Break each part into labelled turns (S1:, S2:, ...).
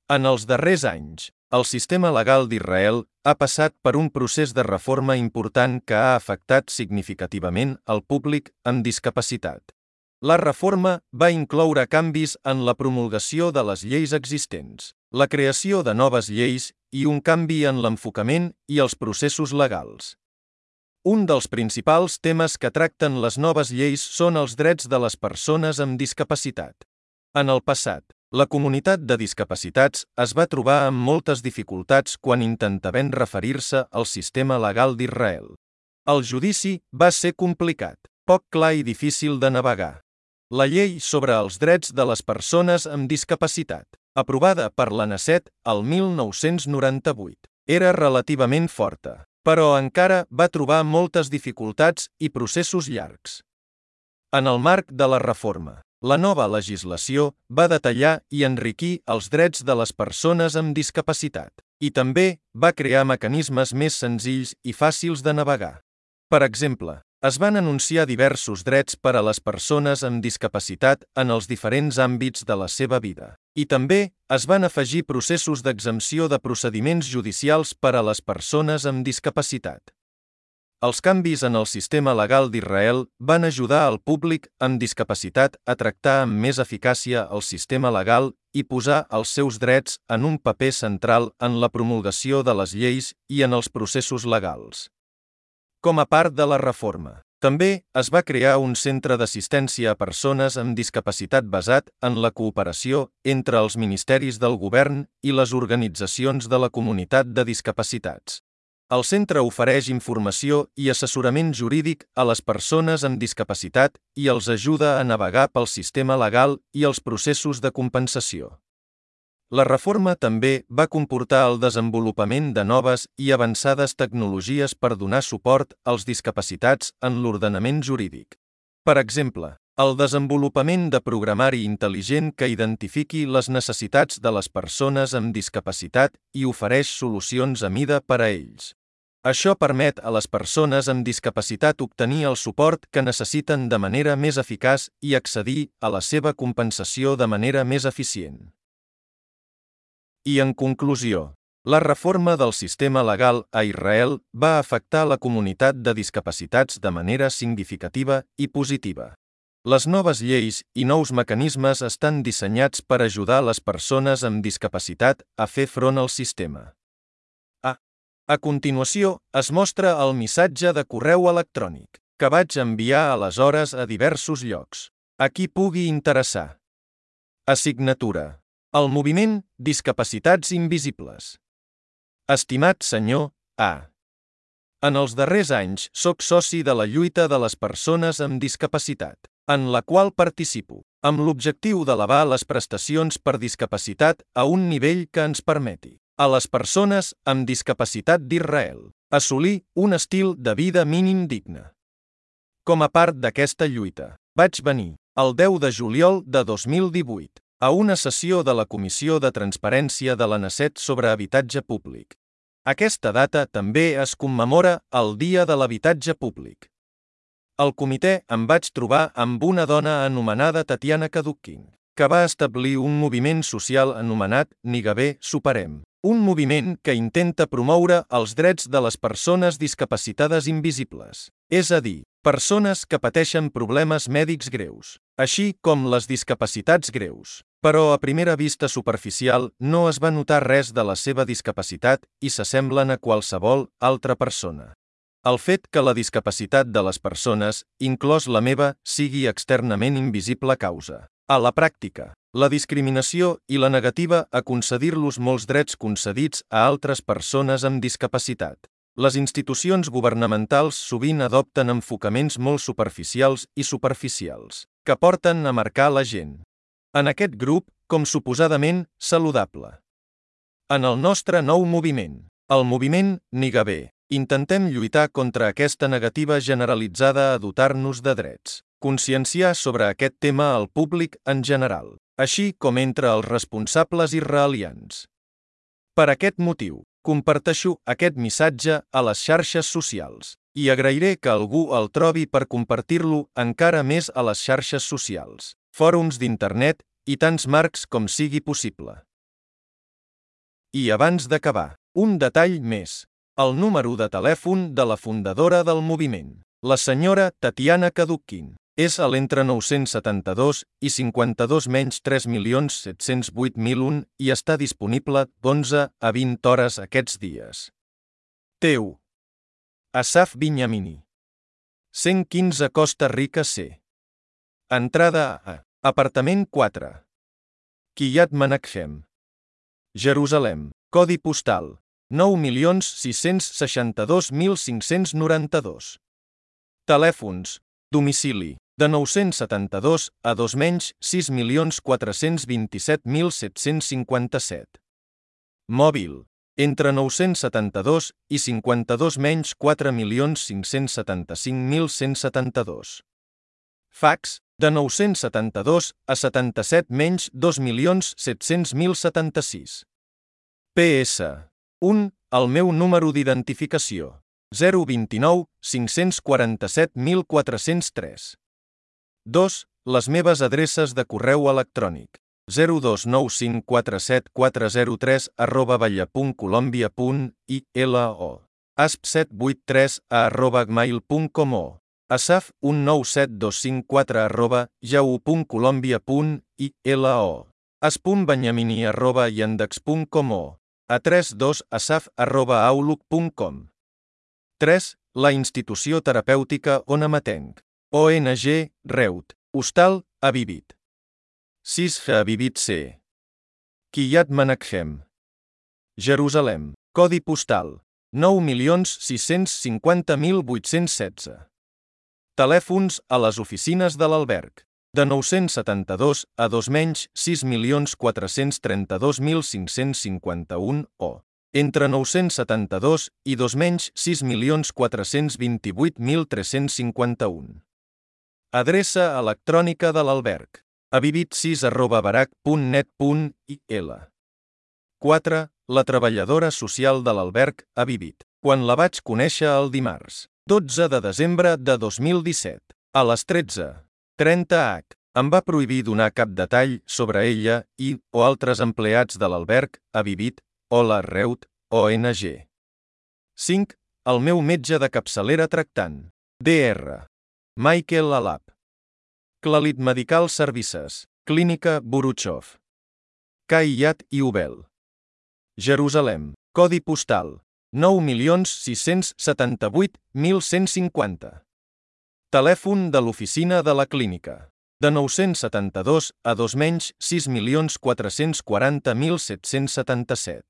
S1: En els darrers anys, el sistema legal d'Israel ha passat per un procés de reforma important que ha afectat significativament el públic amb discapacitat. La reforma va incloure canvis en la promulgació de les lleis existents, la creació de noves lleis i un canvi en l'enfocament i els processos legals. Un dels principals temes que tracten les noves lleis són els drets de les persones amb discapacitat. En el passat, la comunitat de discapacitats es va trobar amb moltes dificultats quan intentaven referir-se al sistema legal d'Israel. El judici va ser complicat, poc clar i difícil de navegar. La llei sobre els drets de les persones amb discapacitat, aprovada per la Knesset el 1998, era relativament forta, però encara va trobar moltes dificultats i processos llargs. En el marc de la reforma, la nova legislació va detallar i enriquir els drets de les persones amb discapacitat, i també va crear mecanismes més senzills i fàcils de navegar. Per exemple, es van anunciar diversos drets per a les persones amb discapacitat en els diferents àmbits de la seva vida, i també es van afegir processos d'exempció de procediments judicials per a les persones amb discapacitat. Els canvis en el sistema legal d'Israel van ajudar al públic amb discapacitat a tractar amb més eficàcia el sistema legal i posar els seus drets en un paper central en la promulgació de les lleis i en els processos legals. Com a part de la reforma, també es va crear un centre d'assistència a persones amb discapacitat basat en la cooperació entre els ministeris del govern i les organitzacions de la comunitat de discapacitats. El centre ofereix informació i assessorament jurídic a les persones amb discapacitat i els ajuda a navegar pel sistema legal i els processos de compensació. La reforma també va comportar el desenvolupament de noves i avançades tecnologies per donar suport als discapacitats en l'ordenament jurídic. Per exemple, el desenvolupament de programari intel·ligent que identifiqui les necessitats de les persones amb discapacitat i ofereix solucions a mida per a ells. Això permet a les persones amb discapacitat obtenir el suport que necessiten de manera més eficaç i accedir a la seva compensació de manera més eficient. I en conclusió, la reforma del sistema legal a Israel va afectar la comunitat de discapacitats de manera significativa i positiva. Les noves lleis i nous mecanismes estan dissenyats per ajudar les persones amb discapacitat a fer front al sistema. A continuació, es mostra el missatge de correu electrònic que vaig enviar aleshores a diversos llocs. A qui pugui interessar. Assignatura. El moviment Discapacitats Invisibles. Estimat senyor A. En els darrers anys soc soci de la lluita de les persones amb discapacitat, en la qual participo, amb l'objectiu d'elevar les prestacions per discapacitat a un nivell que ens permeti a les persones amb discapacitat d'Israel assolir un estil de vida mínim digne. Com a part d'aquesta lluita, vaig venir, el 10 de juliol de 2018, a una sessió de la Comissió de Transparència de la Knesset sobre habitatge públic. Aquesta data també es commemora el Dia de l'Habitatge Públic. Al comitè em vaig trobar amb una dona anomenada Tatiana Kadukkin, que va establir un moviment social anomenat Nigabé Superem, un moviment que intenta promoure els drets de les persones discapacitades invisibles, és a dir, persones que pateixen problemes mèdics greus, així com les discapacitats greus. Però a primera vista superficial no es va notar res de la seva discapacitat i s'assemblen a qualsevol altra persona. El fet que la discapacitat de les persones, inclòs la meva, sigui externament invisible causa, a la pràctica, la discriminació i la negativa a concedir-los molts drets concedits a altres persones amb discapacitat. Les institucions governamentals sovint adopten enfocaments molt superficials i superficials, que porten a marcar la gent en aquest grup com suposadament saludable. En el nostre nou moviment, el moviment Nigabé, intentem lluitar contra aquesta negativa generalitzada a dotar-nos de drets, conscienciar sobre aquest tema al públic en general, així com entre els responsables israelians. Per aquest motiu, comparteixo aquest missatge a les xarxes socials i agrairé que algú el trobi per compartir-lo encara més a les xarxes socials, fòrums d'internet i tants marcs com sigui possible. I abans d'acabar, un detall més. El número de telèfon de la fundadora del moviment, la senyora Tatiana Kadukhin, és a l'entre 972 i 52 menys 3.708.001 i està disponible d'11 a 20 hores aquests dies. Teu. Asaf Binyamini. 115 Costa Rica C. Entrada a apartament 4. Kiryat Menachem. Jerusalem. Codi postal 9.662.592. Telèfons. Domicili. De 972 a 2 menys 6.427.757. Mòbil. Entre 972 i 52 menys 4.575.172. Fax. De 972 a 77 menys 2.700.076. PS. 1. El meu número d'identificació. 029 547.403. 2. Les meves adreces de correu electrònic. 029547403@valla.colombia.ilo. asp783@gmail.com o asaf197254@yahoo.colombia.ilo. as.benyamini@yandex.com o a32asaf@outlook.com. 3. La institució terapèutica on amatenc. ONG, Reut. Hostal, Avivit. 6. Avivit C. Kiryat Menachem. Jerusalem. Codi postal 9.650.816. Telèfons a les oficines de l'alberg. De 972 a 2 menys 6.432.551 o entre 972 i 2 menys 6.428.351. Adreça electrònica de l'alberg. avivit6@barac.net.il. 4. La treballadora social de l'alberg Avivit. Quan la vaig conèixer el dimarts 12 de desembre de 2017, a les 13:30 em va prohibir donar cap detall sobre ella i o altres empleats de l'alberg Avivit o la Reut ONG. 5. El meu metge de capçalera tractant. Dr. Michael Alap. Clalit Medical Services. Clínica Buruchov. Kiryat Yovel. Jerusalem. Codi postal 9.678.150. Telèfon de l'oficina de la clínica. De 972 a 2 menys 6.440.777.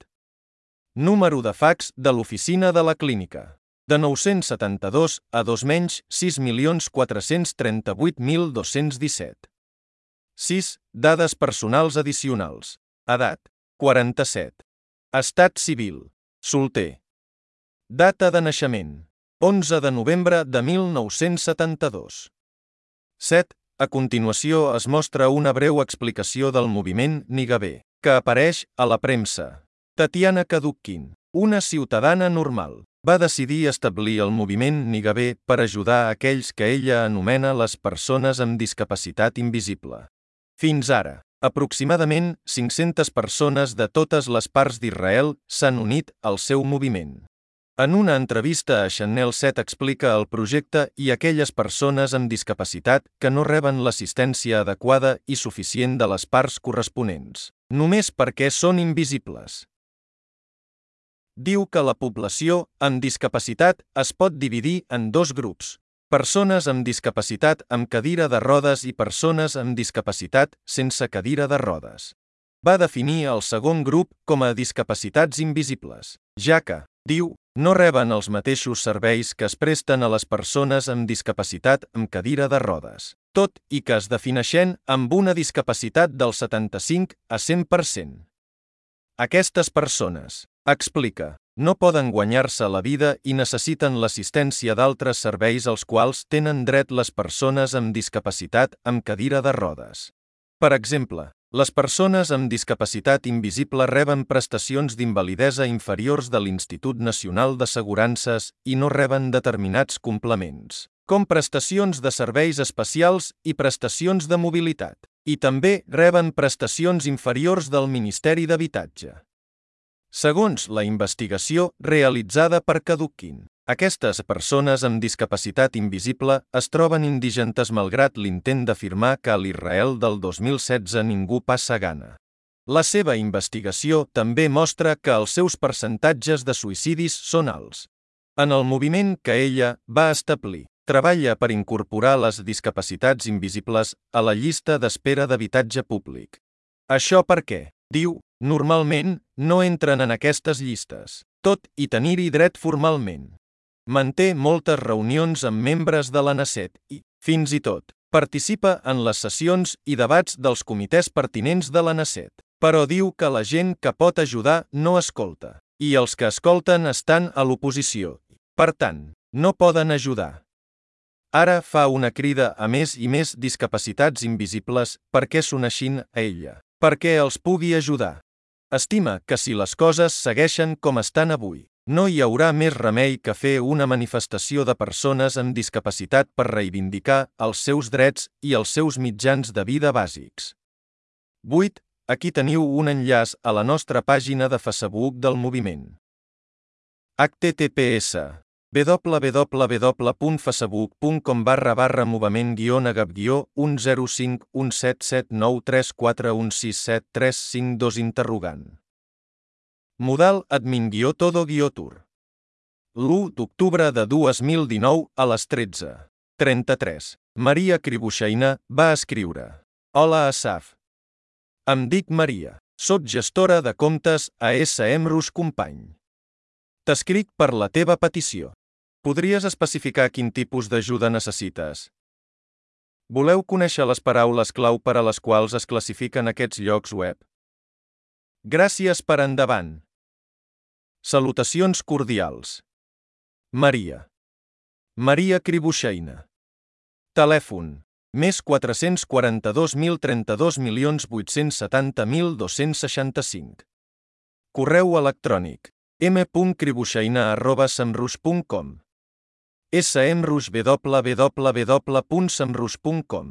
S1: Número de fax de l'oficina de la clínica. De 972 a 2 menys 6.438.217. 6. Dades personals addicionals. Edat. 47. Estat civil. Solter. Data de naixement. 11 de novembre de 1972. 7. A continuació es mostra una breu explicació del moviment Nigabé, que apareix a la premsa. Tatiana Kadukhin, una ciutadana normal, va decidir establir el moviment Nigabé per ajudar a aquells que ella anomena les persones amb discapacitat invisible. Fins ara, aproximadament 500 persones de totes les parts d'Israel s'han unit al seu moviment. En una entrevista a Channel 7 explica el projecte i aquelles persones amb discapacitat que no reben l'assistència adequada i suficient de les parts corresponents, només perquè són invisibles. Diu que la població amb discapacitat es pot dividir en dos grups: persones amb discapacitat amb cadira de rodes i persones amb discapacitat sense cadira de rodes. Va definir el segon grup com a discapacitats invisibles, ja que, diu, no reben els mateixos serveis que es presten a les persones amb discapacitat amb cadira de rodes, tot i que es defineixen amb una discapacitat del 75 a 100%. Aquestes persones, explica, no poden guanyar-se la vida i necessiten l'assistència d'altres serveis als quals tenen dret les persones amb discapacitat amb cadira de rodes. Per exemple, les persones amb discapacitat invisible reben prestacions d'invalidesa inferiors de l'Institut Nacional d'Assegurances i no reben determinats complements, com prestacions de serveis especials i prestacions de mobilitat, i també reben prestacions inferiors del Ministeri d'Habitatge. Segons la investigació realitzada per Kadukin, aquestes persones amb discapacitat invisible es troben indigentes malgrat l'intent d'afirmar que a l'Israel del 2016 ningú passa gana. La seva investigació també mostra que els seus percentatges de suïcidis són alts. En el moviment que ella va establir, treballa per incorporar les discapacitats invisibles a la llista d'espera d'habitatge públic. Això perquè, diu, normalment no entren en aquestes llistes, tot i tenir-hi dret formalment. Manté moltes reunions amb membres de la Knesset i, fins i tot, participa en les sessions i debats dels comitès pertinents de la Knesset, però diu que la gent que pot ajudar no escolta, i els que escolten estan a l'oposició, per tant, no poden ajudar. Ara fa una crida a més i més discapacitats invisibles perquè s'uneixin a ella, perquè els pugui ajudar. Estima que si les coses segueixen com estan avui, no hi haurà més remei que fer una manifestació de persones amb discapacitat per reivindicar els seus drets i els seus mitjans de vida bàsics. 8. Aquí teniu un enllaç a la nostra pàgina de Facebook del moviment. https www.facebook.com/movement-agap-105177934167352 Modal admin-todo-tour. L'1 d'octubre de 2019 a les 13:33. Maria Kribushina va escriure: Hola Asaf. Em dic Maria. Soc gestora de comptes a SEMrush Company. T'escric per la teva petició. Podries especificar quin tipus d'ajuda necessites? Voleu conèixer les paraules clau per a les quals es classifiquen aquests llocs web? Gràcies per endavant. Salutacions cordials. Maria. Maria Kribushina. Telèfon: més 442.032.870.265. Correu electrònic: m.kribushina@semrush.com. SEMrush www.semrush.com.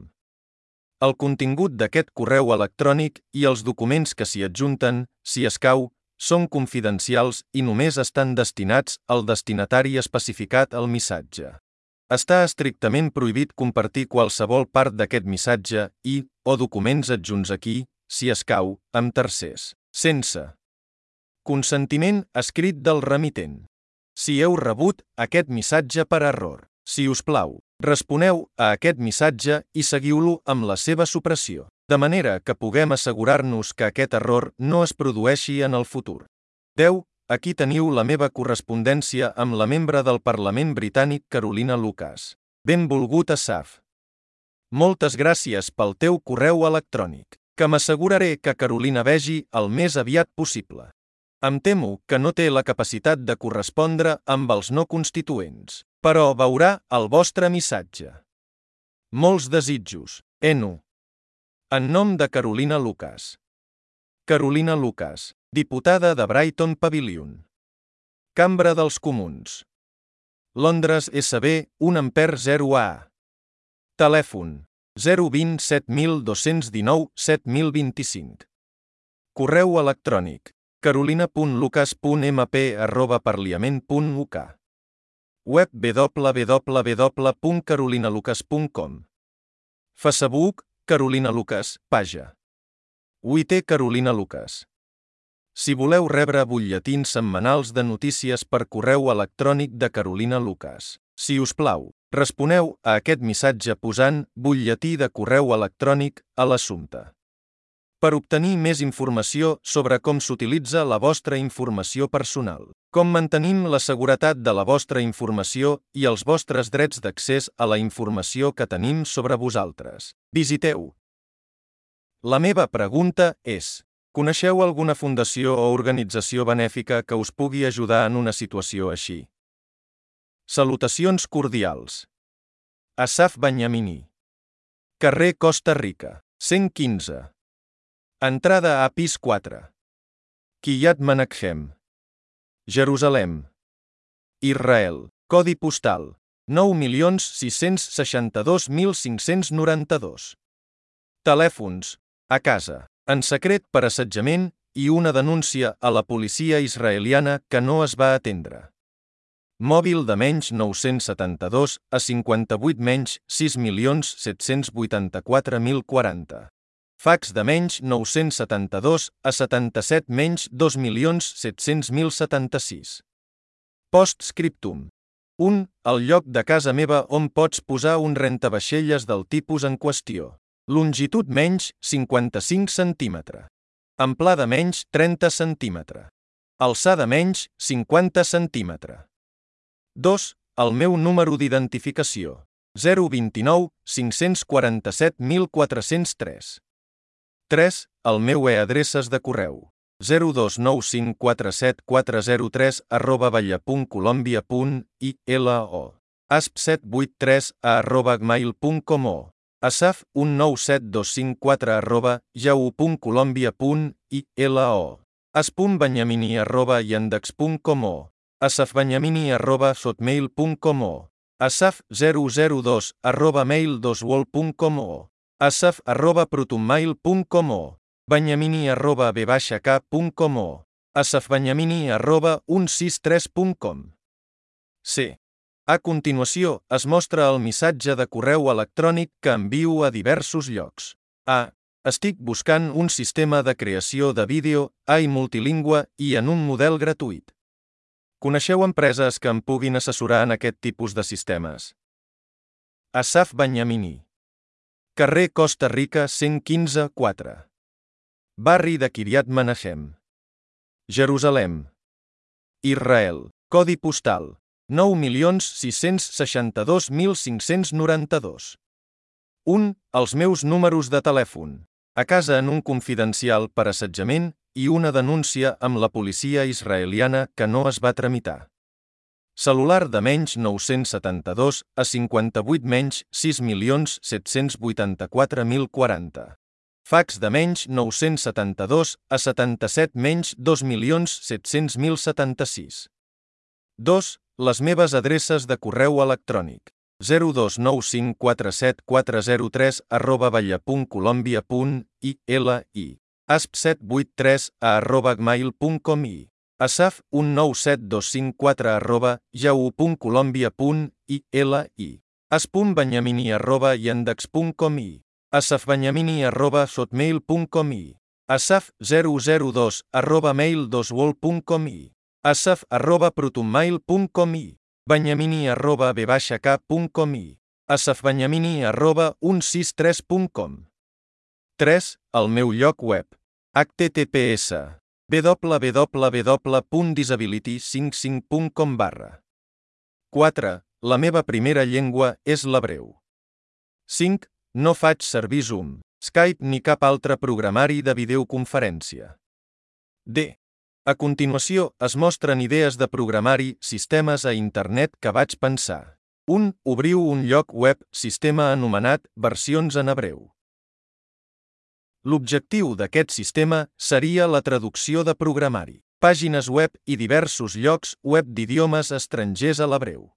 S1: El contingut d'aquest correu electrònic i els documents que s'hi adjunten, si escau, són confidencials i només estan destinats al destinatari especificat al missatge. Està estrictament prohibit compartir qualsevol part d'aquest missatge i, o documents adjunts aquí, si escau, amb tercers, sense consentiment escrit del remitent. Si heu rebut aquest missatge per error, si us plau, responeu a aquest missatge i seguiu-lo amb la seva supressió, de manera que puguem assegurar-nos que aquest error no es produeixi en el futur. 10. Aquí teniu la meva correspondència amb la membre del Parlament britànic Carolina Lucas. Benvolgut Asaf. Moltes gràcies pel teu correu electrònic, que m'asseguraré que Carolina vegi el més aviat possible. Em temo que no té la capacitat de correspondre amb els no constituents, però veurà el vostre missatge. Molts desitjos, Enu. En nom de Carolina Lucas. Carolina Lucas, diputada de Brighton Pavilion. Cambra dels Comuns. Londres SB 1 Ampere 0A. Telèfon: 020 7219 7025. Correu electrònic: carolina.lucas.mp@parliament.uk. Web www.carolinalucas.com. Facebook: Carolina Lucas, pàgina. UIT Carolina Lucas. Si voleu rebre butlletins setmanals de notícies per correu electrònic de Carolina Lucas, si us plau, responeu a aquest missatge posant butlletí de correu electrònic a l'assumpte. Per obtenir més informació sobre com s'utilitza la vostra informació personal, com mantenim la seguretat de la vostra informació i els vostres drets d'accés a la informació que tenim sobre vosaltres, visiteu. La meva pregunta és: coneixeu alguna fundació o organització benèfica que us pugui ajudar en una situació així? Salutacions cordials. Asaf Benyamini. Carrer Costa Rica, 115. Entrada a pis 4. Kiryat Menachem. Jerusalem. Israel. Codi postal: 9.662.592. Telèfons: a casa, en secret per assetjament i una denúncia a la policia israeliana que no es va atendre. Mòbil de menys 972 a 58 menys 6.784.040. Fax de menys 972 a 77 menys 2.700.076. Postscriptum. 1. El lloc de casa meva on pots posar un rentavaixelles del tipus en qüestió. Longitud menys 55 cm. Amplada menys 30 cm. Alçada menys 50 cm. 2. El meu número d'identificació. 029 547 1403. 3. El meu e-adreces de correu. 029547403@valla.colombia.ilo. asp783@gmail.com o asaf197254@yahoo.colombia.ilo. asp.benyamini@yandex.com o asafbenyamini@hotmail.com o asaf002@mail2world.com o asaf@protonmail.com o benyamini@b-k.com o asafbenyamini@163.com. C. A continuació, es mostra el missatge de correu electrònic que envio a diversos llocs. A. Estic buscant un sistema de creació de vídeo, AI multilingüe i en un model gratuït. Coneixeu empreses que em puguin assessorar en aquest tipus de sistemes? Asaf Benyamini. Carrer Costa Rica 115 4. Barri de Kiryat Menahem. Jerusalem. Israel. Codi postal 9.662.592. 1. Els meus números de telèfon. A casa en un confidencial per assetjament i una denúncia amb la policia israeliana que no es va tramitar. Cel·lular de menys 972 a 58 menys 6.784.040. Fax de menys 972 a 77 menys 2.700.076. 2. Les meves adreces de correu electrònic. 0295404@valla.colombia.ilo. asp783@gmail.com i asaf197254@yahoo.colombia.ilo. asp.benyamini@yandex.com i asafbenyamini@hotmail.com i asaf002@mail2world.com i asaf@protonmail.com i benyamini@b-k.com i asafbenyamini@163.com. 3. El meu lloc web. https www.disability55.com. 4. La meva primera llengua és l'hebreu. 5. No faig servir Zoom, Skype ni cap altre programari de videoconferència. D. A continuació, es mostren idees de programari, sistemes a internet que vaig pensar. 1. Obriu un lloc web, sistema anomenat Versions en hebreu. L'objectiu d'aquest sistema seria la traducció de programari, pàgines web i diversos llocs web d'idiomes estrangers a l'hebreu.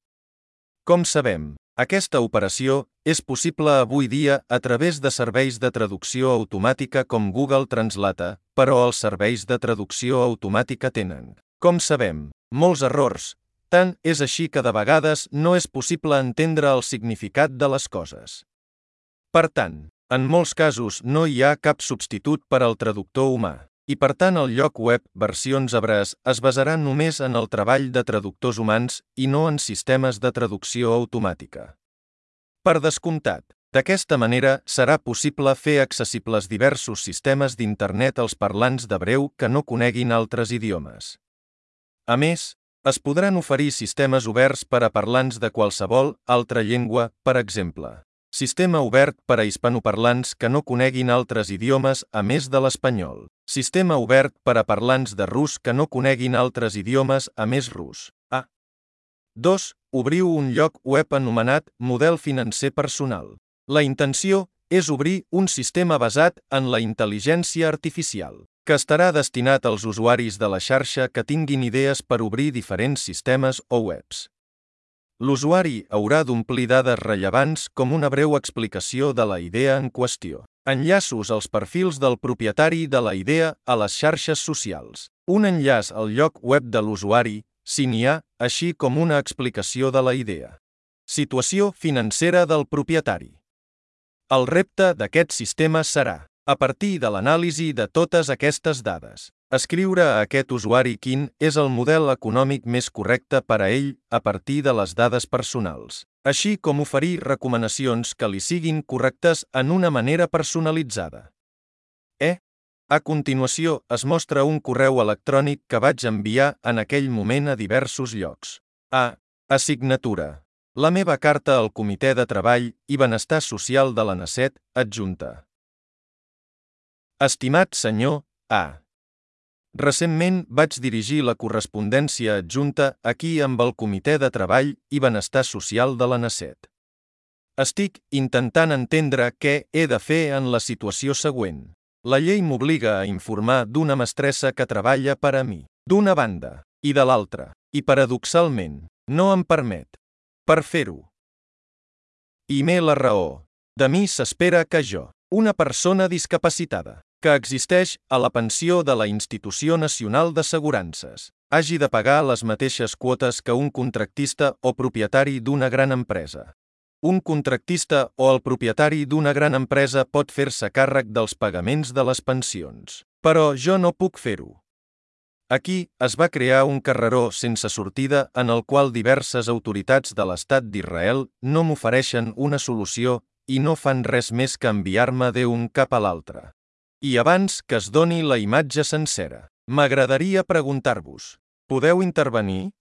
S1: Com sabem, aquesta operació és possible avui dia a través de serveis de traducció automàtica com Google Translate, però els serveis de traducció automàtica tenen, com sabem, molts errors. Tant és així que de vegades no és possible entendre el significat de les coses. Per tant, en molts casos no hi ha cap substitut per al traductor humà, i per tant el lloc web Versions hebrees es basarà només en el treball de traductors humans i no en sistemes de traducció automàtica. Per descomptat, d'aquesta manera serà possible fer accessibles diversos sistemes d'internet als parlants d'hebreu que no coneguin altres idiomes. A més, es podran oferir sistemes oberts per a parlants de qualsevol altra llengua, per exemple. Sistema obert per a hispanoparlants que no coneguin altres idiomes a més de l'espanyol. Sistema obert per a parlants de rus que no coneguin altres idiomes a més rus. A. 2. Obriu un lloc web anomenat Model financer personal. La intenció és obrir un sistema basat en la intel·ligència artificial, que estarà destinat als usuaris de la xarxa que tinguin idees per obrir diferents sistemes o webs. L'usuari haurà d'omplir dades rellevants com una breu explicació de la idea en qüestió. Enllaços als perfils del propietari de la idea a les xarxes socials. Un enllaç al lloc web de l'usuari, si n'hi ha, així com una explicació de la idea. Situació financera del propietari. El repte d'aquest sistema serà, a partir de l'anàlisi de totes aquestes dades, escriure a aquest usuari quin és el model econòmic més correcte per a ell a partir de les dades personals, així com oferir recomanacions que li siguin correctes en una manera personalitzada. A continuació es mostra un correu electrònic que vaig enviar en aquell moment a diversos llocs. Assignatura. La meva carta al Comitè de Treball i Benestar Social de l'ANACET, adjunta. Estimat senyor A. Recentment vaig dirigir la correspondència adjunta aquí amb el Comitè de Treball i Benestar Social de l'ANACET. Estic intentant entendre què he de fer en la situació següent. La llei m'obliga a informar d'una mestressa que treballa per a mi, d'una banda, i de l'altra, i paradoxalment, no em permet. Per fer-ho. I m'he la raó. De mi s'espera que jo, una persona discapacitada, que existeix a la pensió de la Institució Nacional d'Assegurances, hagi de pagar les mateixes quotes que un contractista o propietari d'una gran empresa. Un contractista o el propietari d'una gran empresa pot fer-se càrrec dels pagaments de les pensions, però jo no puc fer-ho. Aquí es va crear un carreró sense sortida en el qual diverses autoritats de l'Estat d'Israel no m'ofereixen una solució i no fan res més que enviar-me d'un cap a l'altre. I abans que es doni la imatge sencera, m'agradaria preguntar-vos, podeu intervenir?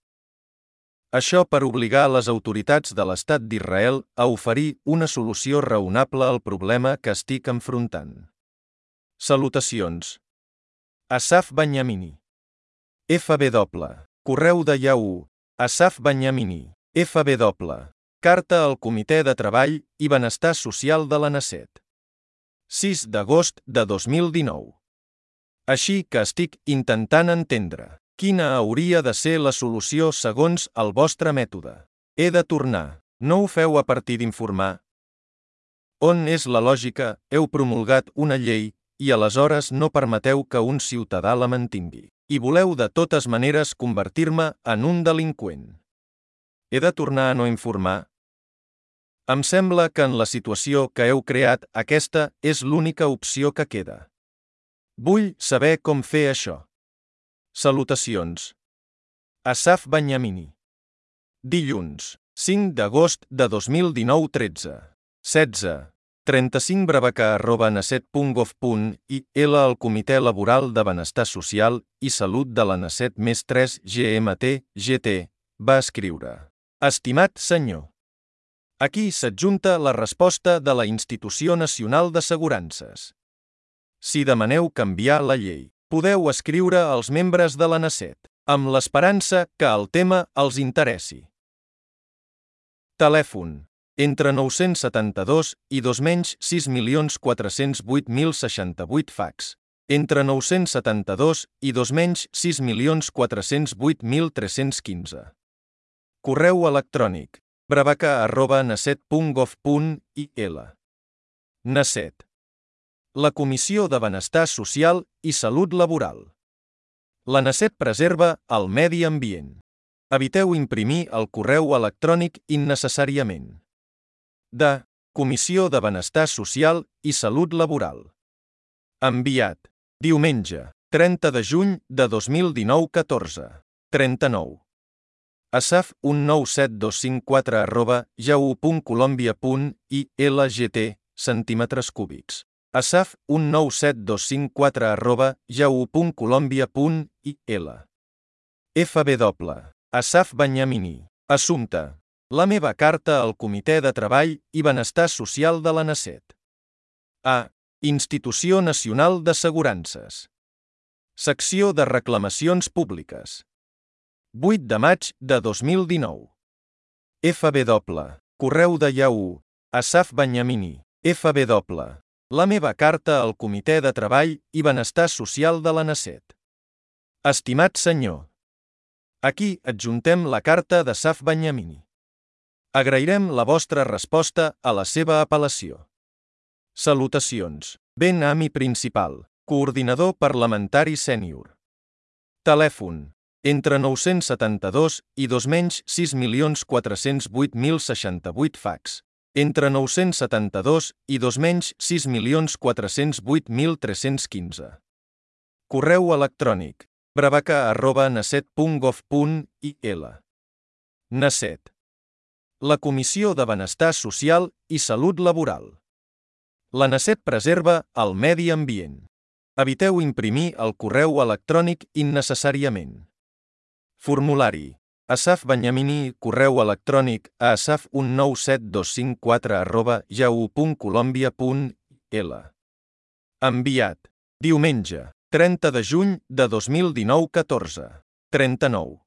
S1: Això per obligar les autoritats de l'Estat d'Israel a oferir una solució raonable al problema que estic enfrontant. Salutacions. Asaf Benyamini. FW. Correu de Yahoo. Asaf Benyamini. FW. Carta al Comitè de Treball i Benestar Social de l'ANACET. 6 d'agost de 2019. Així que estic intentant entendre quina hauria de ser la solució segons el vostre mètode. He de tornar. No ho feu a partir d'informar? On és la lògica? Heu promulgat una llei i aleshores no permeteu que un ciutadà la mantingui. I voleu de totes maneres convertir-me en un delinqüent. He de tornar a no informar? Em sembla que en la situació que heu creat aquesta és l'única opció que queda. Vull saber com fer això. Salutacions. Asaf Benyamini. Dilluns, 5 d'agost de 2019 13. 16. 35 bravaca@anacet.gov.il al Comitè Laboral de Benestar Social i Salut de l'ANACET més 3 GMT, GT, va escriure. Estimat senyor. Aquí s'adjunta la resposta de la Institució Nacional d'Assegurances. Si demaneu canviar la llei, podeu escriure als membres de l'ANACET, amb l'esperança que el tema els interessi. Telèfon. Entre 972 i 2-6.408.068 fax. Entre 972 i 2-6.408.315. Correu electrònic. bravaca@nacet.gov.il. NACET. La Comissió de Benestar Social i Salut Laboral. La NACET preserva el medi ambient. Eviteu imprimir el correu electrònic innecessàriament. De Comissió de Benestar Social i Salut Laboral. Enviat. Diumenge, 30 de juny de 2019 14. 39. Asaf 197254@yahoo.colombia.ilgt centímetres cúbics. Asaf 197254@yahoo.colombia.il. FW. Asaf Benyamini. Assumpte. La meva carta al Comitè de Treball i Benestar Social de l'ANACET. Institució Nacional d'Assegurances. Secció de Reclamacions Públiques. 8 de maig de 2019. FW. Correu de Yahoo. Asaf Benyamini. FW. La meva carta al Comitè de Treball i Benestar Social de l'ANACET. Estimat senyor. Aquí adjuntem la carta d'Asaf Benyamini. Agrairem la vostra resposta a la seva apel·lació. Salutacions. Ben Ami Principal, coordinador parlamentari sènior. Telèfon. Entre 972 i 2.6.408.068 fax. Entre 972 i 2.6.408.315. Correu electrònic. bravaca@naset.gov.il. Naset. La Comissió de Benestar Social i Salut Laboral. La Naset preserva el medi ambient. Eviteu imprimir el correu electrònic innecessàriament. Formulari. Asaf Benyamini, correu electrònic a asaf19725@yahoo.colombia.il. Enviat. Diumenge, 30 de juny de 2019, 14:39.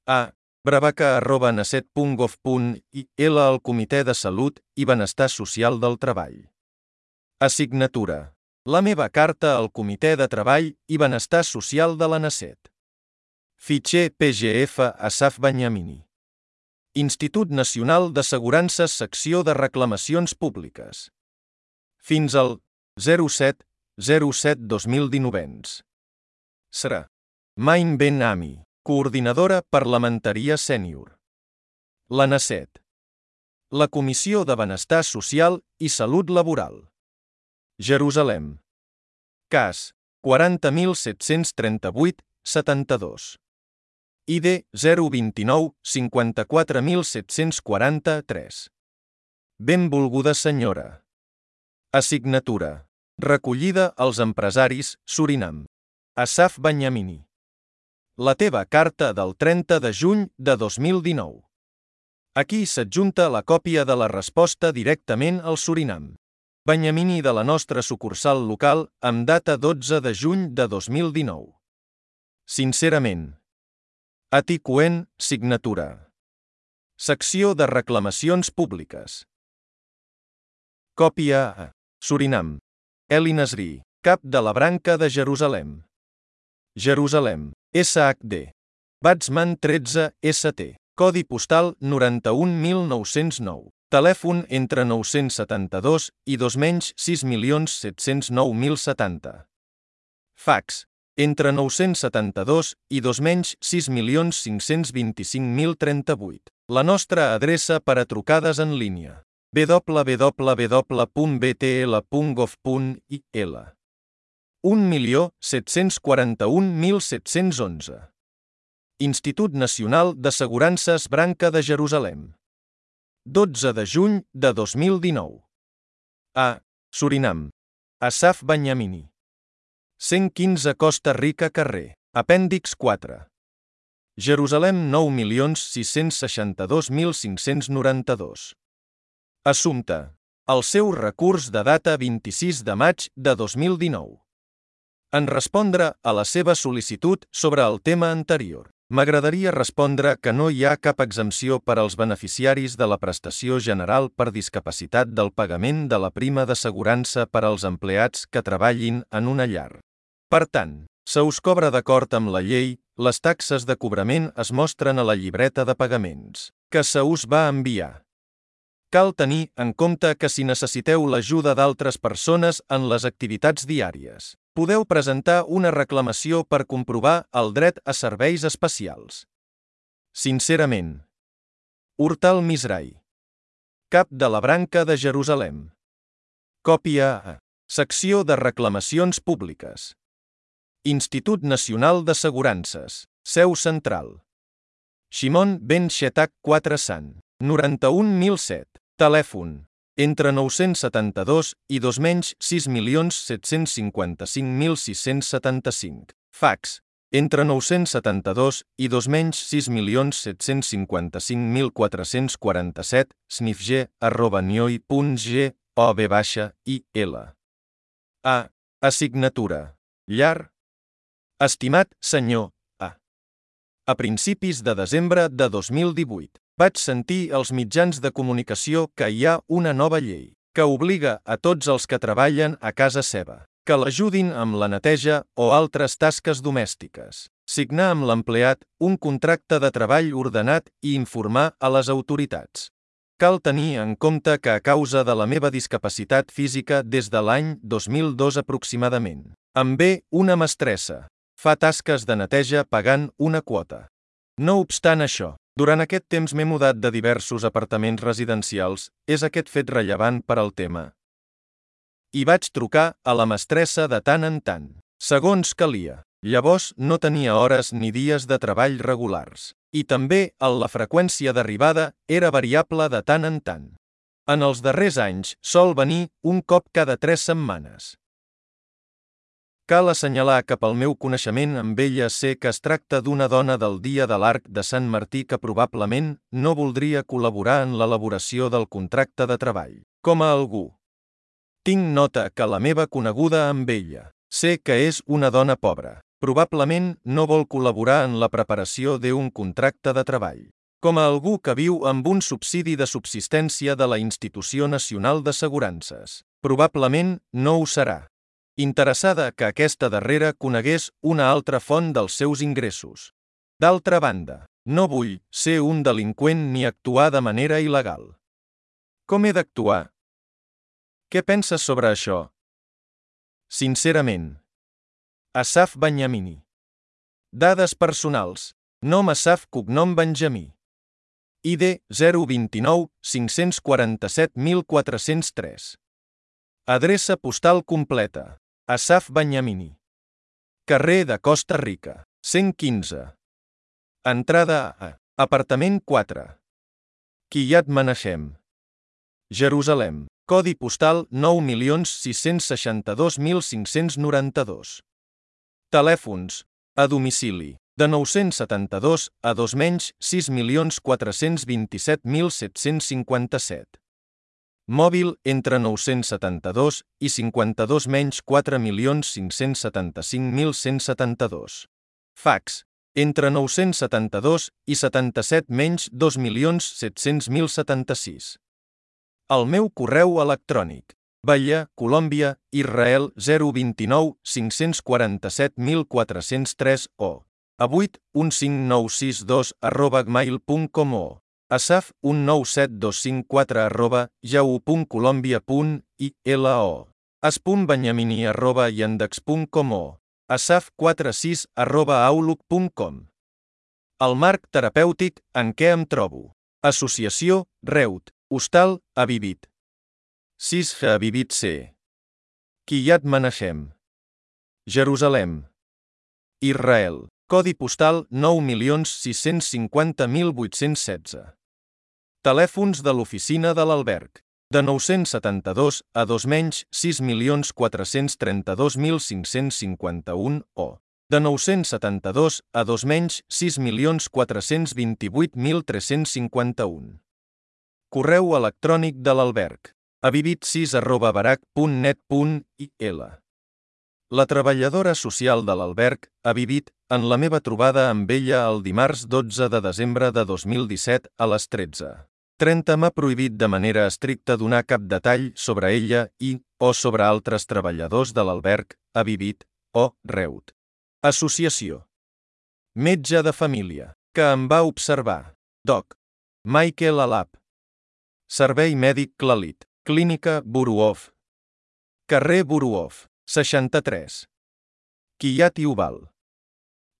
S1: A. bravaca@naset.gov.il al Comitè de Salut i Benestar Social del Treball. Assignatura. La meva carta al Comitè de Treball i Benestar Social de la Naset. Fitxer PGF Asaf Benyamini. Institut Nacional d'Assegurances Secció de Reclamacions Públiques. Fins al 07/07/2019. Serà. Main Ben Ami, coordinadora parlamentària sènior. La Naset. La Comissió de Benestar Social i Salut Laboral. Jerusalem. Cas 40.738-72. ID 029 54743. Benvolguda senyora. Assignatura. Recollida als empresaris, Surinam. Asaf Benyamini. La teva carta del 30 de juny de 2019. Aquí s'adjunta la còpia de la resposta directament al Surinam. Benyamini de la nostra sucursal local, amb data 12 de juny de 2019. Sincerament. Ati Cohen, signatura. Secció de reclamacions públiques. Còpia a. Surinam. Eli Nasri, cap de la branca de Jerusalem. Jerusalem. SHD. Batsman 13 ST. Codi postal 91.909. Telèfon entre 972 i 2.6.709.070. Fax. Entre 972 i 2.6.525.038. La nostra adreça per a trucades en línia. www.btl.gov.il. 1.741.711. Institut Nacional d'Assegurances Branca de Jerusalem. 12 de juny de 2019. A. Surinam. Asaf Benyamini. 115 Costa Rica carrer. Apèndix 4. Jerusalem 9.662.592. Assumpte. El seu recurs de data 26 de maig de 2019. En respondre a la seva sol·licitud sobre el tema anterior, m'agradaria respondre que no hi ha cap exempció per als beneficiaris de la prestació general per discapacitat del pagament de la prima d'assegurança per als empleats que treballin en una llar. Per tant, se us cobra d'acord amb la llei, les taxes de cobrament es mostren a la llibreta de pagaments, que se us va enviar. Cal tenir en compte que si necessiteu l'ajuda d'altres persones en les activitats diàries, podeu presentar una reclamació per comprovar el dret a serveis especials. Sincerament. Urtal Misrai. Cap de la branca de Jerusalem. Còpia a. Secció de reclamacions públiques. Institut Nacional d'Assegurances. Seu central. Shimon Ben Shetak 4 Sant. 91.007. Telèfon. Entre 972 i 2.6.755.675. Fax. Entre 972 i 2.6.755.447. snifg@nioi.gov.il. A. Assignatura. Llar. Estimat senyor A. A principis de desembre de 2018, vaig sentir als mitjans de comunicació que hi ha una nova llei que obliga a tots els que treballen a casa seva que l'ajudin amb la neteja o altres tasques domèstiques, signar amb l'empleat un contracte de treball ordenat i informar a les autoritats. Cal tenir en compte que a causa de la meva discapacitat física des de l'any 2002 aproximadament, em ve una mestressa. Fa tasques de neteja pagant una quota. No obstant això, durant aquest temps m'he mudat de diversos apartaments residencials, és aquest fet rellevant per al tema. I vaig trucar a la mestressa de tant en tant, segons calia. Llavors no tenia hores ni dies de treball regulars. I també la freqüència d'arribada era variable de tant en tant. En els darrers anys sol venir un cop cada 3 setmanes. Cal assenyalar que pel meu coneixement amb ella sé que es tracta d'una dona del Dia de l'Arc de Sant Martí que probablement no voldria col·laborar en l'elaboració del contracte de treball. Com a algú. Tinc nota que la meva coneguda amb ella. Sé que és una dona pobra. Probablement no vol col·laborar en la preparació d'un contracte de treball. Com a algú que viu amb un subsidi de subsistència de la Institució Nacional d'Assegurances. Probablement no ho serà. Interessada que aquesta darrera conegués una altra font dels seus ingressos. D'altra banda, no vull ser un delinqüent ni actuar de manera il·legal. Com he d'actuar? Què penses sobre això? Sincerament. Asaf Benyamini. Dades personals. Nom Asaf, cognom Benjamí. ID 029 547 1403. Adreça postal completa. Asaf Benyamini. Carrer de Costa Rica, 115. Entrada a apartament 4. Kiryat Menachem. Jerusalem. Codi postal 9.662.592. Telèfons. A domicili. De 972 a 2.604.427.757. Mòbil entre 972 i 52 4.575.172. Fax. Entre 972 i 77 2.700.076. El meu correu electrònic. Bahia, Colòmbia, Israel 029 547.403 o avuit15962@gmail.com o asaf197254@yahoo.colombia.ilo as.benyamini@yandex.com o asaf46@outlook.com. El marc terapèutic en què em trobo. Associació, Reut, Hostal, Avivit. 6 Avivit C. Kiryat Menachem. Jerusalem. Israel. Codi postal 9.650.816. Telèfons de l'oficina de l'alberg. De 972 a 2.6.432.551 o de 972 a 2.6.428.351. Correu electrònic de l'alberg. avivit6@barac.net.il. La treballadora social de l'alberg, Avivit, en la meva trobada amb ella el dimarts 12 de desembre de 2017 a les 13:30 m'ha prohibit de manera estricta donar cap detall sobre ella o sobre altres treballadors de l'alberg, Avivit, o Reut. Associació. Metge de família, que em va observar. Doc. Michael Alap. Servei mèdic Clalit. Clínica Buruov. Carrer Buruov, 63. Kiryat Yuval.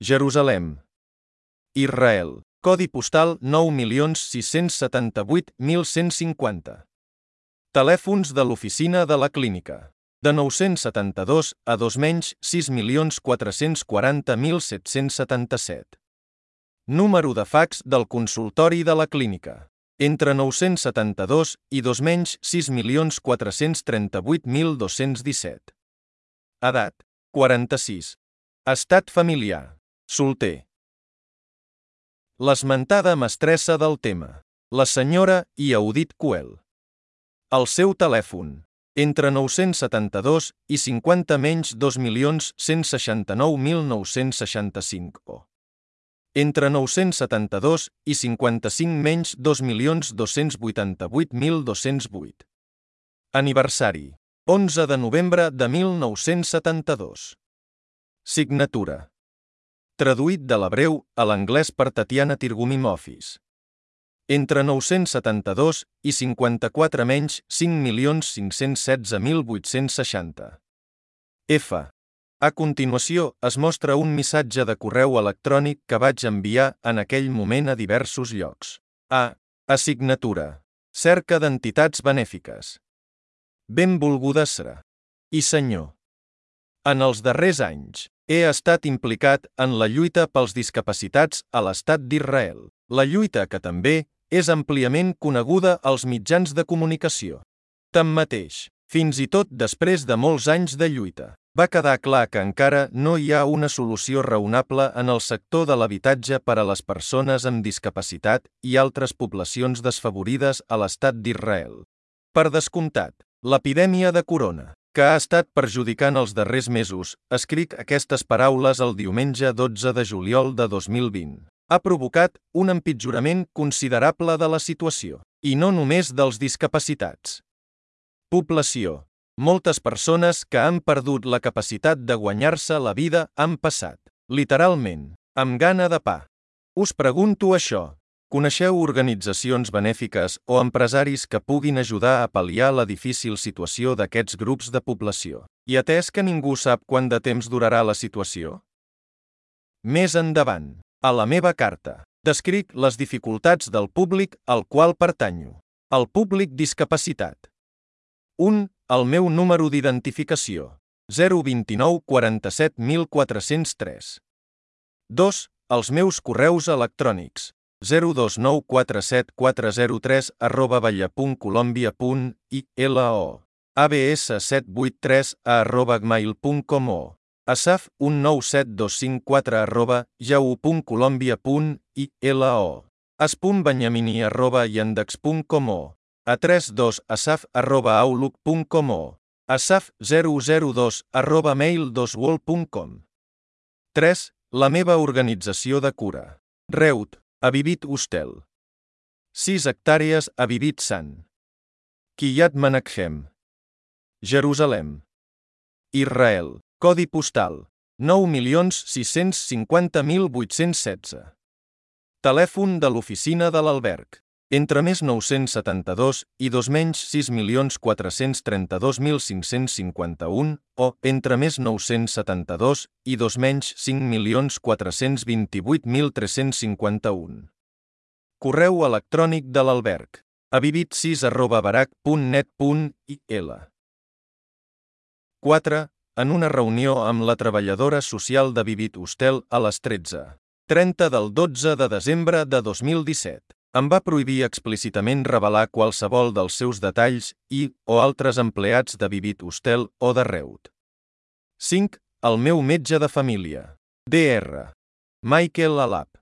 S1: Jerusalem. Israel. Codi postal 9.678.150. Telèfons de l'oficina de la clínica. De 972 a 2.6.440.777. Número de fax del consultori de la clínica. Entre 972 i 2.6.438.217. Edat. 46. Estat familiar. Solter. L'esmentada mestressa del tema. La senyora Yehudit Coel. El seu telèfon. Entre 972 i 50 2.169.965 o entre 972 i 55 2.288.208. Aniversari. 11 de novembre de 1972. Signatura. Traduït de l'hebreu a l'anglès per Tatiana Tirgumim Office. entre 972 i 54 menys 5.516.860. F. A continuació, es mostra un missatge de correu electrònic que vaig enviar en aquell moment a diversos llocs. A. Assignatura. Cerca d'entitats benèfiques. Benvolguda Sra. I senyor. En els darrers anys, he estat implicat en la lluita pels discapacitats a l'Estat d'Israel. La lluita que també és àmpliament coneguda als mitjans de comunicació. Tanmateix, fins i tot després de molts anys de lluita, va quedar clar que encara no hi ha una solució raonable en el sector de l'habitatge per a les persones amb discapacitat i altres poblacions desfavorides a l'Estat d'Israel. Per descomptat, l'epidèmia de corona, que ha estat perjudicant els darrers mesos, escric aquestes paraules el diumenge 12 de juliol de 2020. Ha provocat un empitjorament considerable de la situació, i no només dels discapacitats. Població. Moltes persones que han perdut la capacitat de guanyar-se la vida han passat, literalment, amb gana de pa. Us pregunto això. Coneixeu organitzacions benèfiques o empresaris que puguin ajudar a pal·liar la difícil situació d'aquests grups de població? I atès que ningú sap quant de temps durarà la situació? Més endavant, a la meva carta, descric les dificultats del públic al qual pertanyo. El públic discapacitat. 1. El meu número d'identificació. 029 47403. 2. Els meus correus electrònics. 029474030@balla.colombia.ilo, abs783@gmail.com o asaf197254@yahoo.colombia.ilo, as.banyamini@yandex.com o a32asaf@outlook.com o asaf002@mail2world.com. 3. La meva organització de cura. Reut, Avivit Hostel. 6 hectàrees Avivit Sant. Kiryat Menachem. Jerusalem. Israel. Codi postal. 9.650.816. Telèfon de l'oficina de l'alberg. Entre més 972 i 2 menys 6.432.551 o entre més 972 i 2 menys 5.428.351. Correu electrònic de l'alberg. avivit6@barac.net.il. 4. En una reunió amb la treballadora social d'Avivit Hostel a les 13:30 del 12 de desembre de 2017. Em va prohibir explícitament revelar qualsevol dels seus detalls o altres empleats d'Avivit Hostel o de Reut. 5. El meu metge de família. Dr. Michael Alap.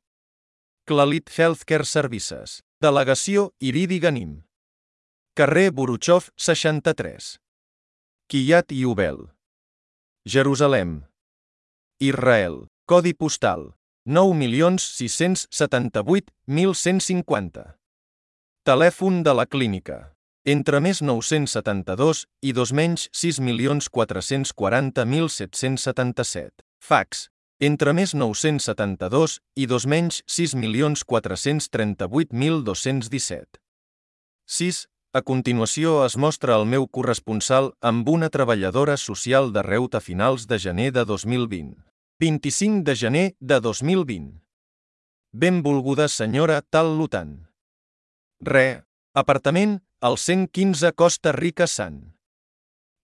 S1: Clalit Healthcare Services. Delegació Iridi Ganim. Carrer Buruchov 63. Kiryat Yovel. Jerusalem. Israel. Codi postal. 9.678.150. Telèfon de la clínica. Entre més 972 i 2 menys 6.440.777. Fax. Entre més 972 i 2 menys 6.438.217. 6. A continuació es mostra el meu corresponsal amb una treballadora social de Reut a finals de gener de 2020. 25 de gener de 2020. Benvolguda senyora Tal-Lutan. Apartament, al 115 Costa Rica Sant.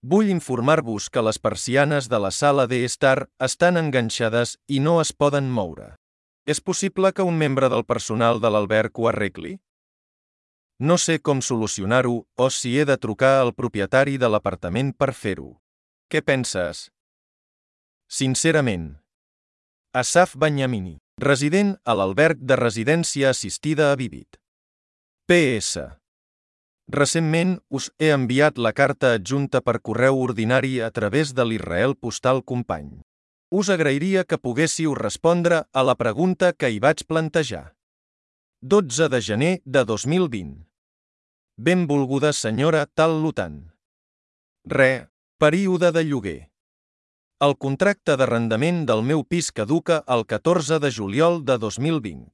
S1: Vull informar-vos que les persianes de la sala d'estar estan enganxades i no es poden moure. És possible que un membre del personal de l'alberg ho arregli? No sé com solucionar-ho o si he de trucar al propietari de l'apartament per fer-ho. Què penses? Sincerament. Asaf Banyamini, resident a l'alberg de residència assistida Avivit. PS. Recentment us he enviat la carta adjunta per correu ordinari a través de l'Israel Postal Company. Us agrairia que poguéssiu respondre a la pregunta que hi vaig plantejar. 12 de gener de 2020. Benvolguda senyora Tal-Lutan. Període de lloguer. El contracte d'arrendament del meu pis caduca el 14 de juliol de 2020.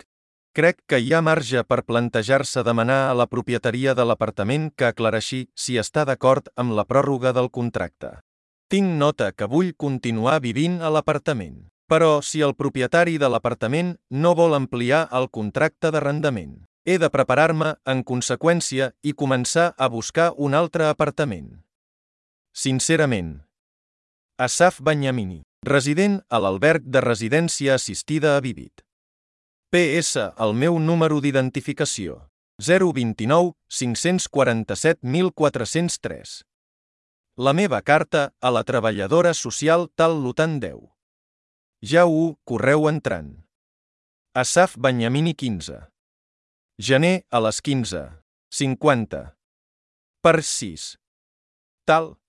S1: Crec que hi ha marge per plantejar-se demanar a la propietaria de l'apartament que aclareixi si està d'acord amb la pròrroga del contracte. Tinc nota que vull continuar vivint a l'apartament, però si el propietari de l'apartament no vol ampliar el contracte d'arrendament, he de preparar-me en conseqüència i començar a buscar un altre apartament. Sincerament. Asaf Banyamini, resident a l'alberg de residència assistida a Vivit. PS. El meu número d'identificació. 029 547 1403. La meva carta a la treballadora social tal Lutan 10. Ja ho, correu entrant. Asaf Banyamini 15. Gener a les 15:50. Per 6. Tal.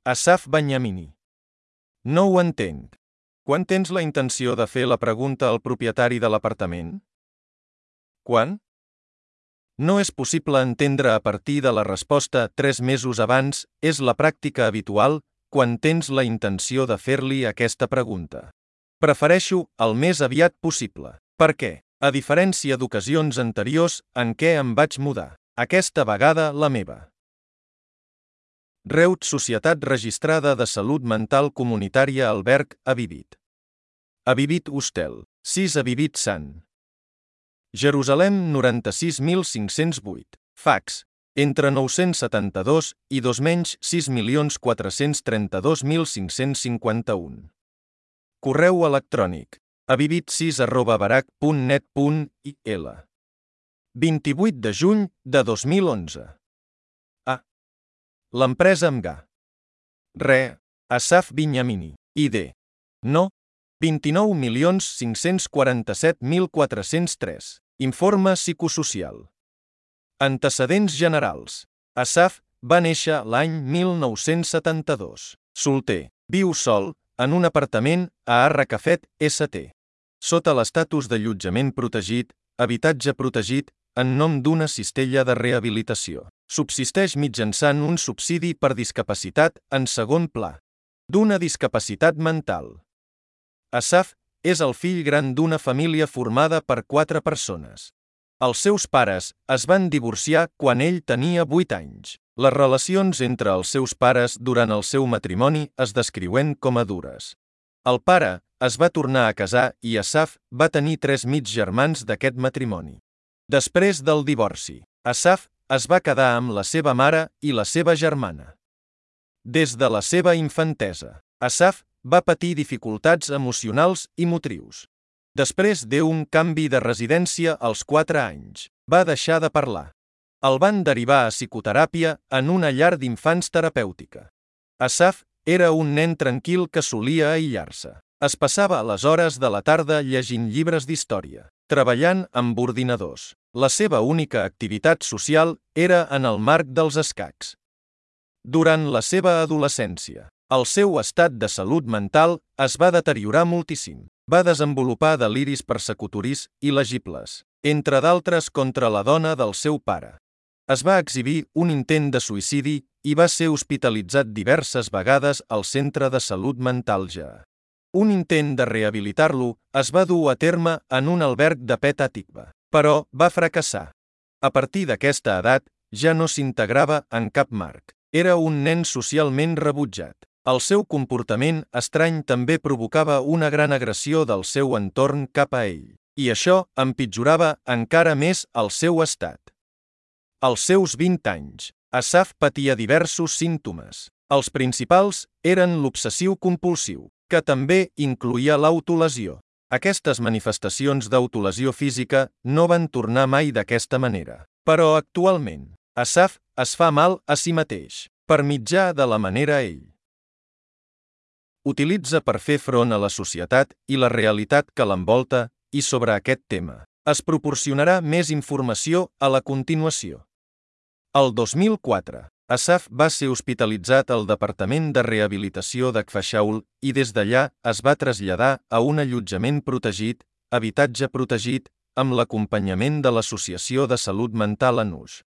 S1: Asaf Banyamini. No ho entenc. Quan tens la intenció de fer la pregunta al propietari de l'apartament? Quan? No és possible entendre a partir de la resposta 3 mesos abans, és la pràctica habitual quan tens la intenció de fer-li aquesta pregunta. Prefereixo el més aviat possible. Per què? A diferència d'ocasions anteriors en què em vaig mudar. Aquesta vegada la meva. Reut Societat Registrada de Salut Mental Comunitària Alberg a Vivit. A Vivit Hostel, 6 a Vivit Sant. Jerusalem 96.508. Fax, entre 972 i 2.6.432.551. Correu electrònic, avivit6@barac.net.il. 28 de juny de 2011. L'empresa Mga. Asaf Banyamini. ID. No. 29.547.403. Informe psicosocial. Antecedents generals. Asaf va néixer l'any 1972. Solter. Viu sol, en un apartament a Arracafet, ST. Sota l'estatus d'allotjament protegit, habitatge protegit, en nom d'una cistella de rehabilitació. Subsisteix mitjançant un subsidi per discapacitat en segon pla. D'una discapacitat mental. Asaf és el fill gran d'una família formada per 4 persones. Els seus pares es van divorciar quan ell tenia 8 anys. Les relacions entre els seus pares durant el seu matrimoni es descriuen com a dures. El pare es va tornar a casar i Asaf va tenir 3 mig germans d'aquest matrimoni. Després del divorci, Asaf es va quedar amb la seva mare i la seva germana. Des de la seva infantesa, Asaf va patir dificultats emocionals i motrius. Després d'un canvi de residència als 4 anys, va deixar de parlar. El van derivar a psicoteràpia en una llar d'infants terapèutica. Asaf era un nen tranquil que solia aïllar-se. Es passava les hores de la tarda llegint llibres d'història, treballant amb ordinadors. La seva única activitat social era en el marc dels escacs. Durant la seva adolescència, el seu estat de salut mental es va deteriorar moltíssim. Va desenvolupar deliris persecutoris il·legibles, entre d'altres contra la dona del seu pare. Es va exhibir un intent de suïcidi i va ser hospitalitzat diverses vegades al centre de salut mental Ja. Un intent de rehabilitar-lo es va dur a terme en un alberg de Petah Tikva, però va fracassar. A partir d'aquesta edat, ja no s'integrava en cap marc. Era un nen socialment rebutjat. El seu comportament estrany també provocava una gran agressió del seu entorn cap a ell, i això empitjorava encara més el seu estat. Als seus 20 anys, Asaf patia diversos símptomes. Els principals eren l'obsessiu-compulsiu, que també incloïa l'autolesió. Aquestes manifestacions d'autolesió física no van tornar mai d'aquesta manera. Però actualment, Asaf es fa mal a si mateix, per mitjà de la manera ell utilitza per fer front a la societat i la realitat que l'envolta, i sobre aquest tema es proporcionarà més informació a la continuació. El 2004, Asaf va ser hospitalitzat al Departament de Rehabilitació d'Akfashaul i des d'allà es va traslladar a un allotjament protegit, habitatge protegit, amb l'acompanyament de l'Associació de Salut Mental Anush.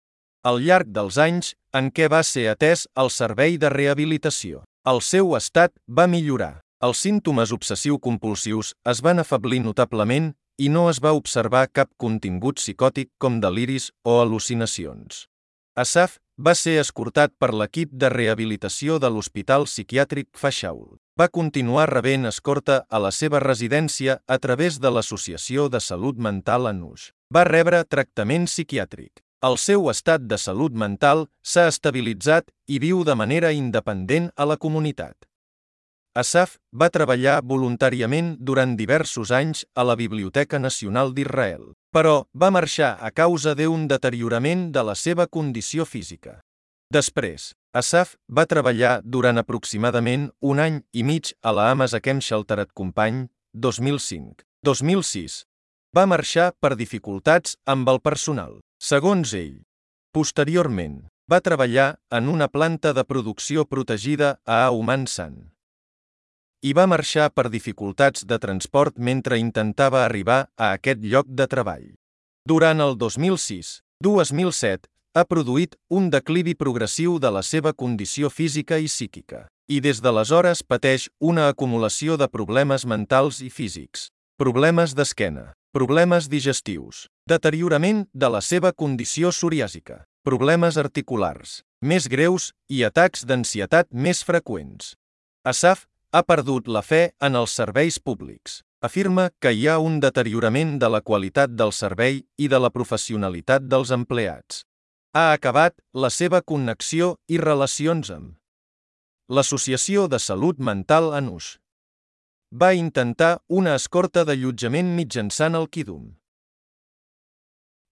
S1: Al llarg dels anys en què va ser atès al servei de rehabilitació, el seu estat va millorar. Els símptomes obsessiu-compulsius es van afeblir notablement i no es va observar cap contingut psicòtic com deliris o al·lucinacions. Asaf va ser escortat per l'equip de rehabilitació de l'Hospital Psiquiàtric Fashaul. Va continuar rebent escorta a la seva residència a través de l'Associació de Salut Mental Anush. Va rebre tractament psiquiàtric. El seu estat de salut mental s'ha estabilitzat i viu de manera independent a la comunitat. Asaf va treballar voluntàriament durant diversos anys a la Biblioteca Nacional d'Israel, però va marxar a causa d'un deteriorament de la seva condició física. Després, Asaf va treballar durant aproximadament un any i mig a la Amos Hakem Sheltered Company, 2005. 2006. Va marxar per dificultats amb el personal. Segons ell, posteriorment, va treballar en una planta de producció protegida a Auman San. I va marxar per dificultats de transport mentre intentava arribar a aquest lloc de treball. Durant el 2006-2007, ha produït un declivi progressiu de la seva condició física i psíquica, i des d'aleshores pateix una acumulació de problemes mentals i físics, problemes d'esquena, problemes digestius, deteriorament de la seva condició psoriàsica, problemes articulars més greus i atacs d'ansietat més freqüents. Asaf ha perdut la fe en els serveis públics. Afirma que hi ha un deteriorament de la qualitat del servei i de la professionalitat dels empleats. Ha acabat la seva connexió i relacions amb l'Associació de Salut Mental Anush. Va intentar una escorta d'allotjament mitjançant el Kidum.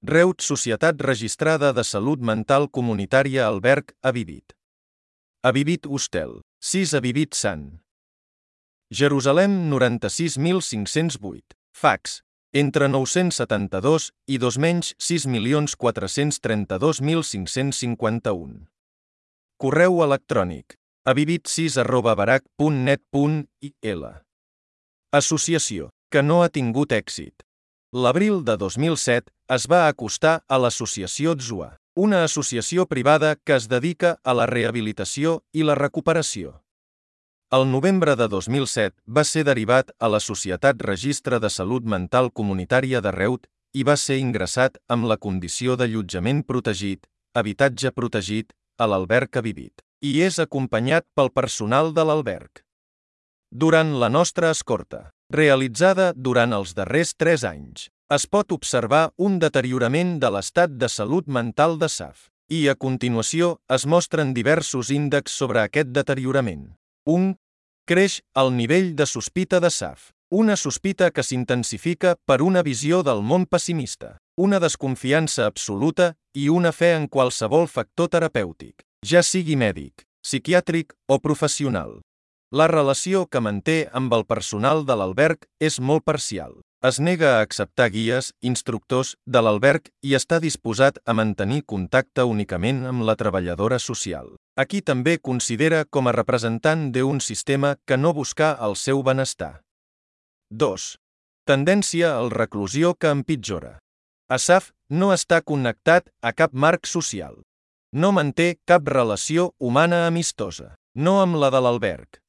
S1: Reut Societat Registrada de Salut Mental Comunitària Alberg Avivit. Avivit Hostel, 6 Avivit Sant. Jerusalem 96.508. Fax. Entre 972 i 2.6.432.551. Correu electrònic. avivit6@barak.net.il. Associació, que no ha tingut èxit. L'abril de 2007 es va acostar a l'Associació Tzua, una associació privada que es dedica a la rehabilitació i la recuperació. El novembre de 2007 va ser derivat a la Societat Registre de Salut Mental Comunitària de Reut i va ser ingressat amb la condició d'allotjament protegit, habitatge protegit, a l'alberg Avivit, i és acompanyat pel personal de l'alberg. Durant la nostra escorta, realitzada durant els darrers 3 anys, es pot observar un deteriorament de l'estat de salut mental d'Asaf, i a continuació es mostren diversos índexs sobre aquest deteriorament. 1. Creix el nivell de sospita d'Asaf. Una sospita que s'intensifica per una visió del món pessimista, una desconfiança absoluta i una fe en qualsevol factor terapèutic, ja sigui mèdic, psiquiàtric o professional. La relació que manté amb el personal de l'alberg és molt parcial. Es nega a acceptar guies, instructors de l'alberg i està disposat a mantenir contacte únicament amb la treballadora social. Aquí també considera com a representant d'un sistema que no busca el seu benestar. 2. Tendència al reclusió que empitjora. Asaf no està connectat a cap marc social. No manté cap relació humana amistosa, no amb la de l'alberg.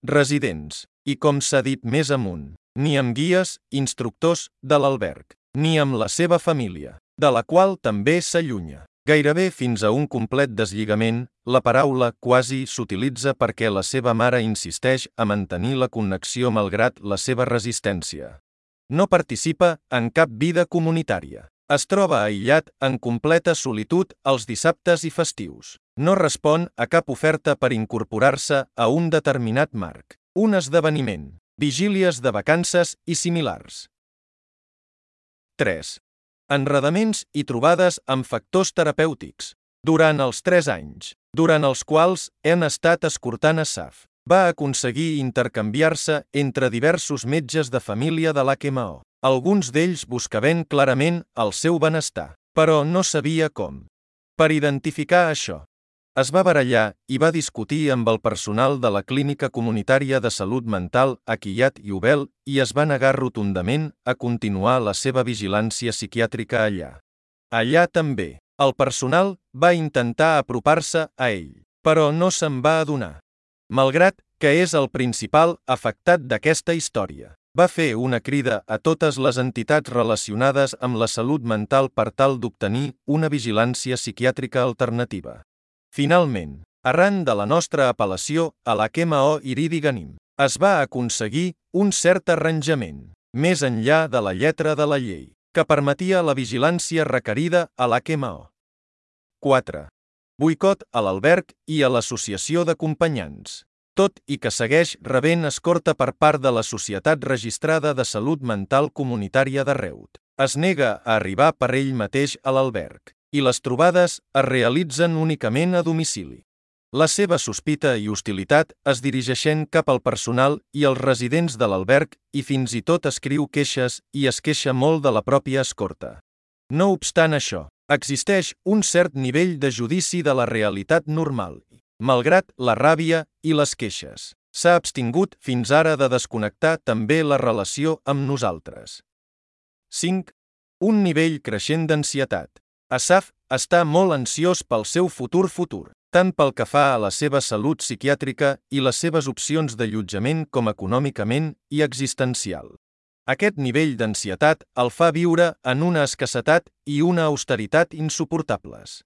S1: Residents, i com s'ha dit més amunt, ni amb guies, instructors de l'alberg, ni amb la seva família, de la qual també s'allunya. Gairebé fins a un complet deslligament, la paraula quasi s'utilitza perquè la seva mare insisteix a mantenir la connexió malgrat la seva resistència. No participa en cap vida comunitària. Es troba aïllat en completa solitud els dissabtes i festius. No respon a cap oferta per incorporar-se a un determinat marc, un esdeveniment, vigílies de vacances i similars. 3. Enredaments i trobades amb factors terapèutics. Durant els 3 anys, durant els quals hem estat escortant Asaf, va aconseguir intercanviar-se entre diversos metges de família de l'HMO. Alguns d'ells buscaven clarament el seu benestar, però no sabia com. Per identificar això, es va barallar i va discutir amb el personal de la Clínica Comunitària de Salut Mental a Kiryat Yovel i es va negar rotundament a continuar la seva vigilància psiquiàtrica allà. Allà també, el personal va intentar apropar-se a ell, però no se'n va adonar, malgrat que és el principal afectat d'aquesta història. Va fer una crida a totes les entitats relacionades amb la salut mental per tal d'obtenir una vigilància psiquiàtrica alternativa. Finalment, arran de la nostra apel·lació a la KMO Iridi Ganim, es va aconseguir un cert arranjament, més enllà de la lletra de la llei, que permetia la vigilància requerida a la KMO. 4. Boicot a l'alberg i a l'associació d'acompanyants. Tot i que segueix rebent escorta per part de la Societat Registrada de Salut Mental Comunitària de Reut, es nega a arribar per ell mateix a l'alberg, i les trobades es realitzen únicament a domicili. La seva sospita i hostilitat es dirigeixen cap al personal i als residents de l'alberg i fins i tot escriu queixes i es queixa molt de la pròpia escorta. No obstant això, existeix un cert nivell de judici de la realitat normal. Malgrat la ràbia i les queixes, s'ha abstingut fins ara de desconnectar també la relació amb nosaltres. 5. Un nivell creixent d'ansietat. Asaf està molt ansiós pel seu futur, tant pel que fa a la seva salut psiquiàtrica i les seves opcions d'allotjament com econòmicament i existencial. Aquest nivell d'ansietat el fa viure en una escassetat i una austeritat insuportables.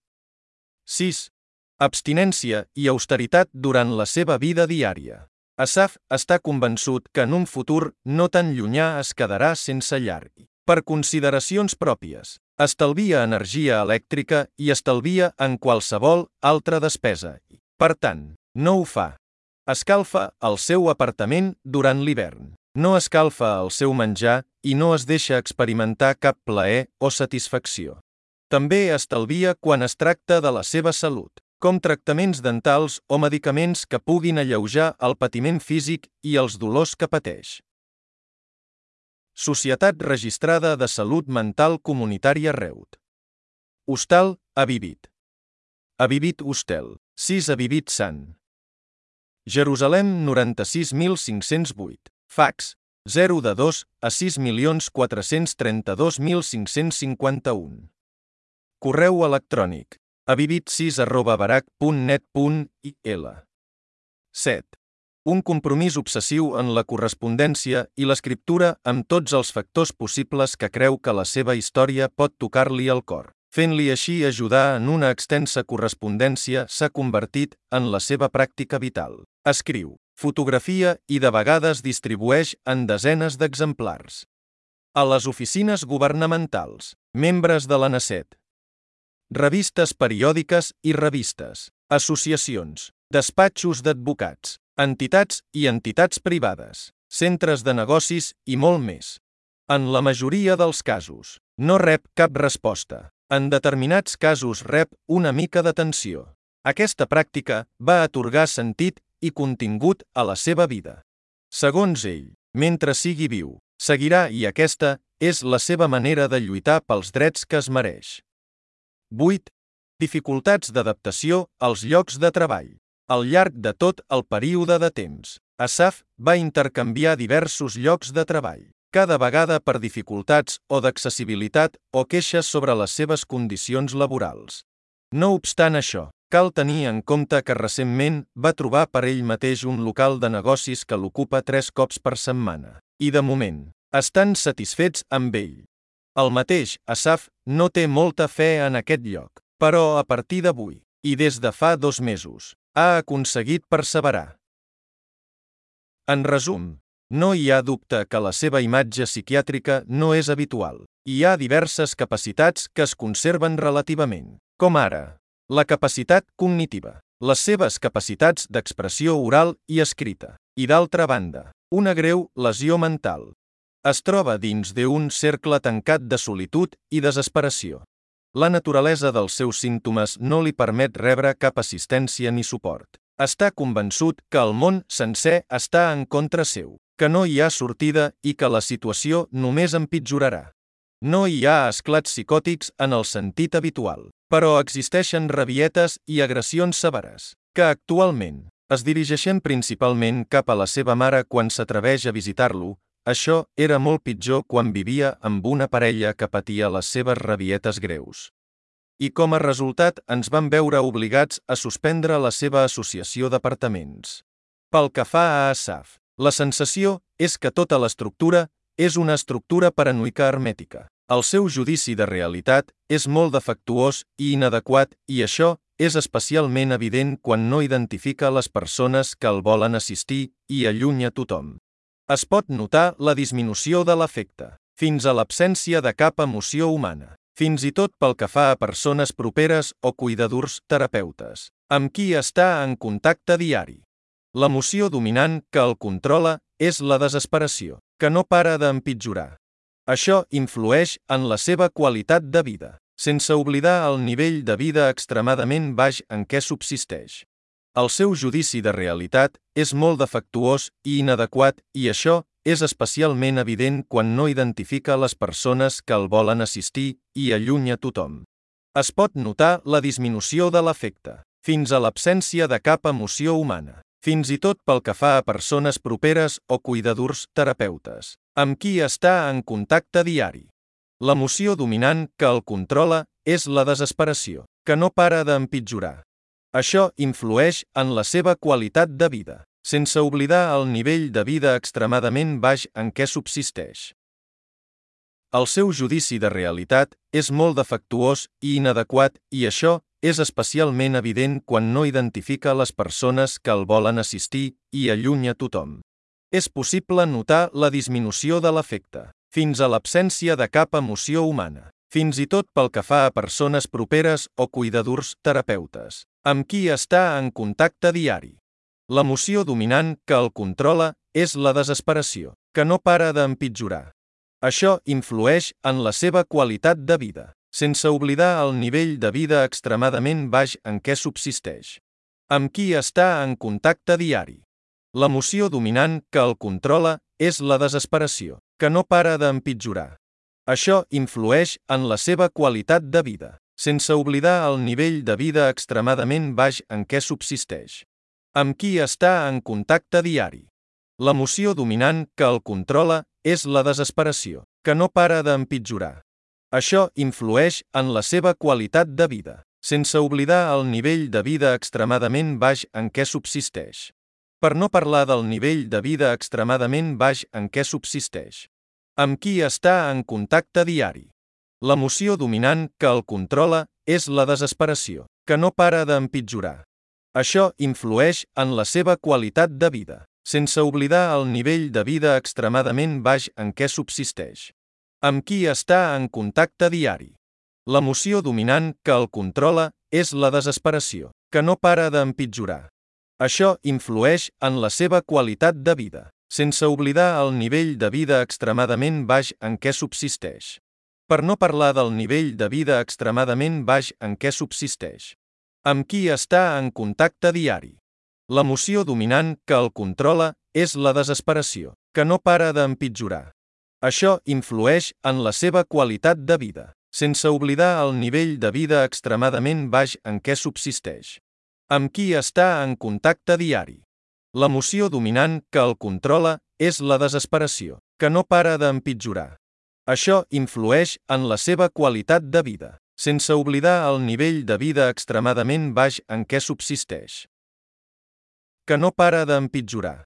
S1: 6. Abstinència i austeritat durant la seva vida diària. Asaf està convençut que en un futur no tan llunyà es quedarà sense llar. Per consideracions pròpies, estalvia energia elèctrica i estalvia en qualsevol altra despesa. Per tant, no ho fa. Escalfa el seu apartament durant l'hivern. No escalfa el seu menjar i no es deixa experimentar cap plaer o satisfacció. També estalvia quan es tracta de la seva salut, com tractaments dentals o medicaments que puguin alleujar el patiment físic i els dolors que pateix. Societat Registrada de Salut Mental Comunitària Reut. Hostal, Avivit. Avivit Hostel, 6 Avivit Sant. Jerusalem 96.508. Fax, 0 a 6.432.551. Correu electrònic, avivit6@barac.net.il. 7. Un compromís obsessiu en la correspondència i l'escriptura amb tots els factors possibles que creu que la seva història pot tocar-li el cor. Fent-li així ajudar en una extensa correspondència s'ha convertit en la seva pràctica vital. Escriu, fotografia i de vegades distribueix en desenes d'exemplars. A les oficines governamentals, membres de l'ANACET, revistes periòdiques i revistes, associacions, despatxos d'advocats, entitats i entitats privades, centres de negocis i molt més. En la majoria dels casos, no rep cap resposta. En determinats casos rep una mica d'atenció. Aquesta pràctica va atorgar sentit i contingut a la seva vida. Segons ell, mentre sigui viu, seguirà i aquesta és la seva manera de lluitar pels drets que es mereix. 8. Dificultats d'adaptació als llocs de treball. Al llarg de tot el període de temps, Asaf va intercanviar diversos llocs de treball, cada vegada per dificultats o d'accessibilitat o queixes sobre les seves condicions laborals. No obstant això, cal tenir en compte que recentment va trobar per ell mateix un local de negocis que l'ocupa 3 cops per setmana, i de moment, estan satisfets amb ell. El mateix Asaf no té molta fe en aquest lloc, però a partir d'avui, i des de fa 2 mesos, ha aconseguit perseverar. En resum, no hi ha dubte que la seva imatge psiquiàtrica no és habitual. Hi ha diverses capacitats que es conserven relativament, com ara la capacitat cognitiva, les seves capacitats d'expressió oral i escrita, i d'altra banda, una greu lesió mental. Es troba dins d'un cercle tancat de solitud i desesperació. La naturalesa dels seus símptomes no li permet rebre cap assistència ni suport. Està convençut que el món sencer està en contra seu, que no hi ha sortida i que la situació només empitjorarà. No hi ha esclats psicòtics en el sentit habitual, però existeixen rabietes i agressions severes, que actualment es dirigeixen principalment cap a la seva mare quan s'atreveix a visitar-lo. Això era molt pitjor quan vivia amb una parella que patia les seves rabietes greus. I com a resultat ens vam veure obligats a suspendre la seva associació d'apartaments. Pel que fa a Asaf, La sensació és que tota l'estructura és una estructura paranoica hermètica. El seu judici de realitat és molt defectuós i inadequat i això és especialment evident quan no identifica les persones que el volen assistir i allunya tothom. Es pot notar la disminució de l'afecte, fins a l'absència de cap emoció humana, fins i tot pel que fa a persones properes o cuidadors terapeutes, amb qui està en contacte diari. L'emoció dominant que el controla és la desesperació, que no para d'empitjorar. Això influeix en la seva qualitat de vida, sense oblidar el nivell de vida extremadament baix en què subsisteix. El seu judici de realitat és molt defectuós i inadequat i això és especialment evident quan no identifica les persones que el volen assistir i allunya tothom. Es pot notar la disminució de l'afecte, fins a l'absència de cap emoció humana, fins i tot pel que fa a persones properes o cuidadors terapeutes, amb qui està en contacte diari. L'emoció dominant que el controla és la desesperació, que no para d'empitjorar. Això influeix en la seva qualitat de vida, sense oblidar el nivell de vida extremadament baix en què subsisteix. El seu judici de realitat és molt defectuós i inadequat i això és especialment evident quan no identifica les persones que el volen assistir i allunya tothom. És possible notar la disminució de l'afecte, fins a l'absència de cap emoció humana, fins i tot pel que fa a persones properes o cuidadors terapeutes, amb qui està en contacte diari. L'emoció dominant que el controla és la desesperació, que no para d'empitjorar. Això influeix en la seva qualitat de vida, sense oblidar el nivell de vida extremadament baix en què subsisteix. Amb qui està en contacte diari. L'emoció dominant que el controla és la desesperació, que no para d'empitjorar. Això influeix en la seva qualitat de vida, sense oblidar el nivell de vida extremadament baix en què subsisteix. Amb qui està en contacte diari. L'emoció dominant que el controla és la desesperació, que no para d'empitjorar. Això influeix en la seva qualitat de vida, sense oblidar el nivell de vida extremadament baix en què subsisteix. Per no parlar del nivell de vida extremadament baix en què subsisteix. Amb qui està en contacte diari. L'emoció dominant que el controla és la desesperació, que no para d'empitjorar. Això influeix en la seva qualitat de vida, sense oblidar el nivell de vida extremadament baix en què subsisteix. Amb qui està en contacte diari. L'emoció dominant que el controla és la desesperació, que no para d'empitjorar. Això influeix en la seva qualitat de vida, sense oblidar el nivell de vida extremadament baix en què subsisteix. Per no parlar del nivell de vida extremadament baix en què subsisteix. Amb qui està en contacte diari. L'emoció dominant que el controla és la desesperació, que no para d'empitjorar. Això influeix en la seva qualitat de vida, sense oblidar el nivell de vida extremadament baix en què subsisteix. Amb qui està en contacte diari. L'emoció dominant que el controla és la desesperació, que no para d'empitjorar. Això influeix en la seva qualitat de vida, sense oblidar el nivell de vida extremadament baix en què subsisteix. Que no para d'empitjorar.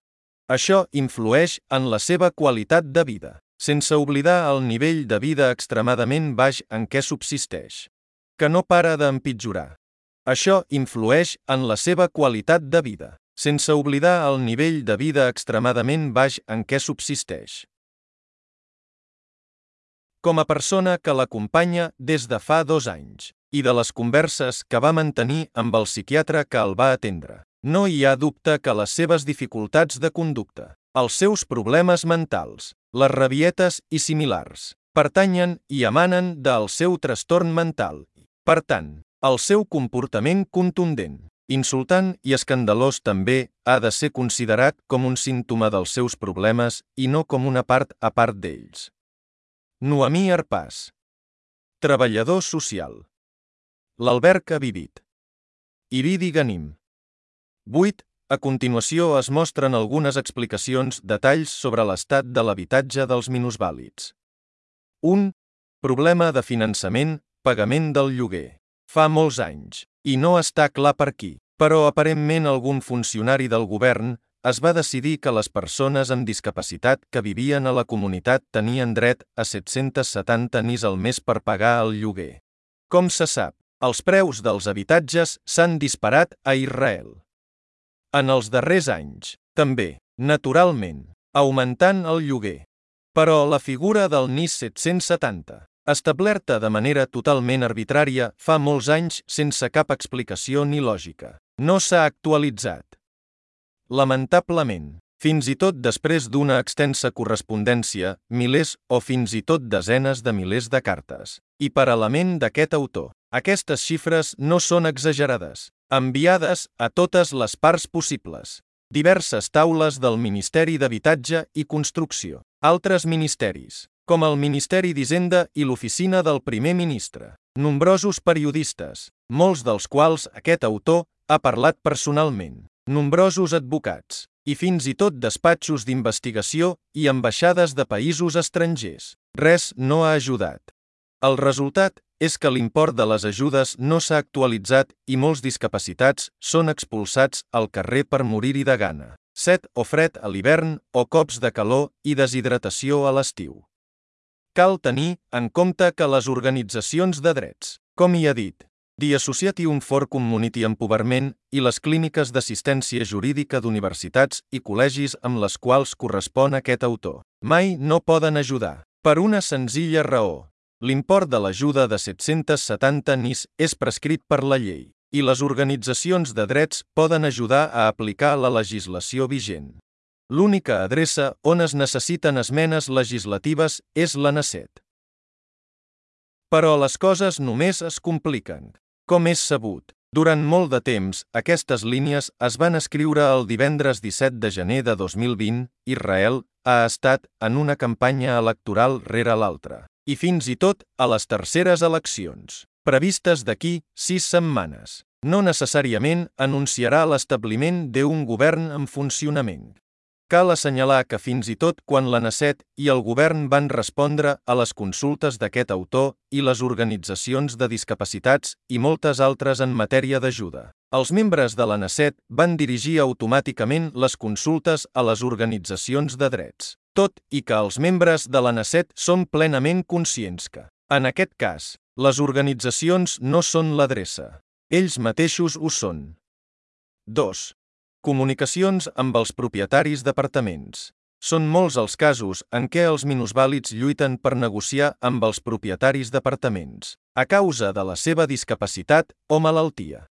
S1: Això influeix en la seva qualitat de vida, sense oblidar el nivell de vida extremadament baix en què subsisteix. Que no para d'empitjorar. Això influeix en la seva qualitat de vida, sense oblidar el nivell de vida extremadament baix en què subsisteix. Com a persona que l'acompanya des de fa 2 anys, i de les converses que va mantenir amb el psiquiatre que el va atendre, no hi ha dubte que les seves dificultats de conducta, els seus problemes mentals, les rabietes i similars, pertanyen i emanen del seu trastorn mental. Per tant, el seu comportament contundent, insultant i escandalós també ha de ser considerat com un símptoma dels seus problemes i no com una part a part d'ells. Noemí Arpàs. Treballador social. L'Alberg ha vivit. Iridi Ganim. 8. A continuació es mostren algunes explicacions, detalls sobre l'estat de l'habitatge dels minusvàlids. 1. Problema de finançament, pagament del lloguer. Fa molts anys, i no està clar per qui, però aparentment algun funcionari del govern es va decidir que les persones amb discapacitat que vivien a la comunitat tenien dret a 770 NIS al mes per pagar el lloguer. Com se sap, els preus dels habitatges s'han disparat a Israel. En els darrers anys, també, naturalment, augmentant el lloguer. Però la figura del NIS 770, establerta de manera totalment arbitrària fa molts anys sense cap explicació ni lògica, no s'ha actualitzat. Lamentablement, fins i tot després d'una extensa correspondència, milers o fins i tot desenes de milers de cartes, i paral·lament d'aquest autor, aquestes xifres no són exagerades, enviades a totes les parts possibles. Diverses taules del Ministeri d'Habitatge i Construcció, altres ministeris, com el Ministeri d'Hisenda i l'Oficina del Primer Ministre, nombrosos periodistes, molts dels quals aquest autor ha parlat personalment, nombrosos advocats, i fins i tot despatxos d'investigació i ambaixades de països estrangers. Res no ha ajudat. El resultat és que l'import de les ajudes no s'ha actualitzat i molts discapacitats són expulsats al carrer per morir-hi de gana, set o fred a l'hivern o cops de calor i deshidratació a l'estiu. Cal tenir en compte que les organitzacions de drets, com hi ha dit, The Association for Community Empowerment i les clíniques d'assistència jurídica d'universitats i col·legis amb les quals correspon aquest autor, mai no poden ajudar, per una senzilla raó. L'import de l'ajuda de 770 NIS és prescrit per la llei, i les organitzacions de drets poden ajudar a aplicar la legislació vigent. L'única adreça on es necessiten esmenes legislatives és la NACET. Però les coses només es compliquen. Com és sabut, durant molt de temps, aquestes línies es van escriure el divendres 17 de gener de 2020, Israel ha estat en una campanya electoral rere l'altra. I fins i tot a les terceres eleccions, previstes d'aquí 6 setmanes, no necessàriament anunciarà l'establiment d'un govern en funcionament. Cal assenyalar que fins i tot quan la NACET i el govern van respondre a les consultes d'aquest autor i les organitzacions de discapacitats i moltes altres en matèria d'ajuda, els membres de la NACET van dirigir automàticament les consultes a les organitzacions de drets. Tot i que els membres de la NACET són plenament conscients que, en aquest cas, les organitzacions no són l'adreça. Ells mateixos ho són. 2. Comunicacions amb els propietaris d'apartaments. Són molts els casos en què els minusvàlids lluiten per negociar amb els propietaris d'apartaments, a causa de la seva discapacitat o malaltia.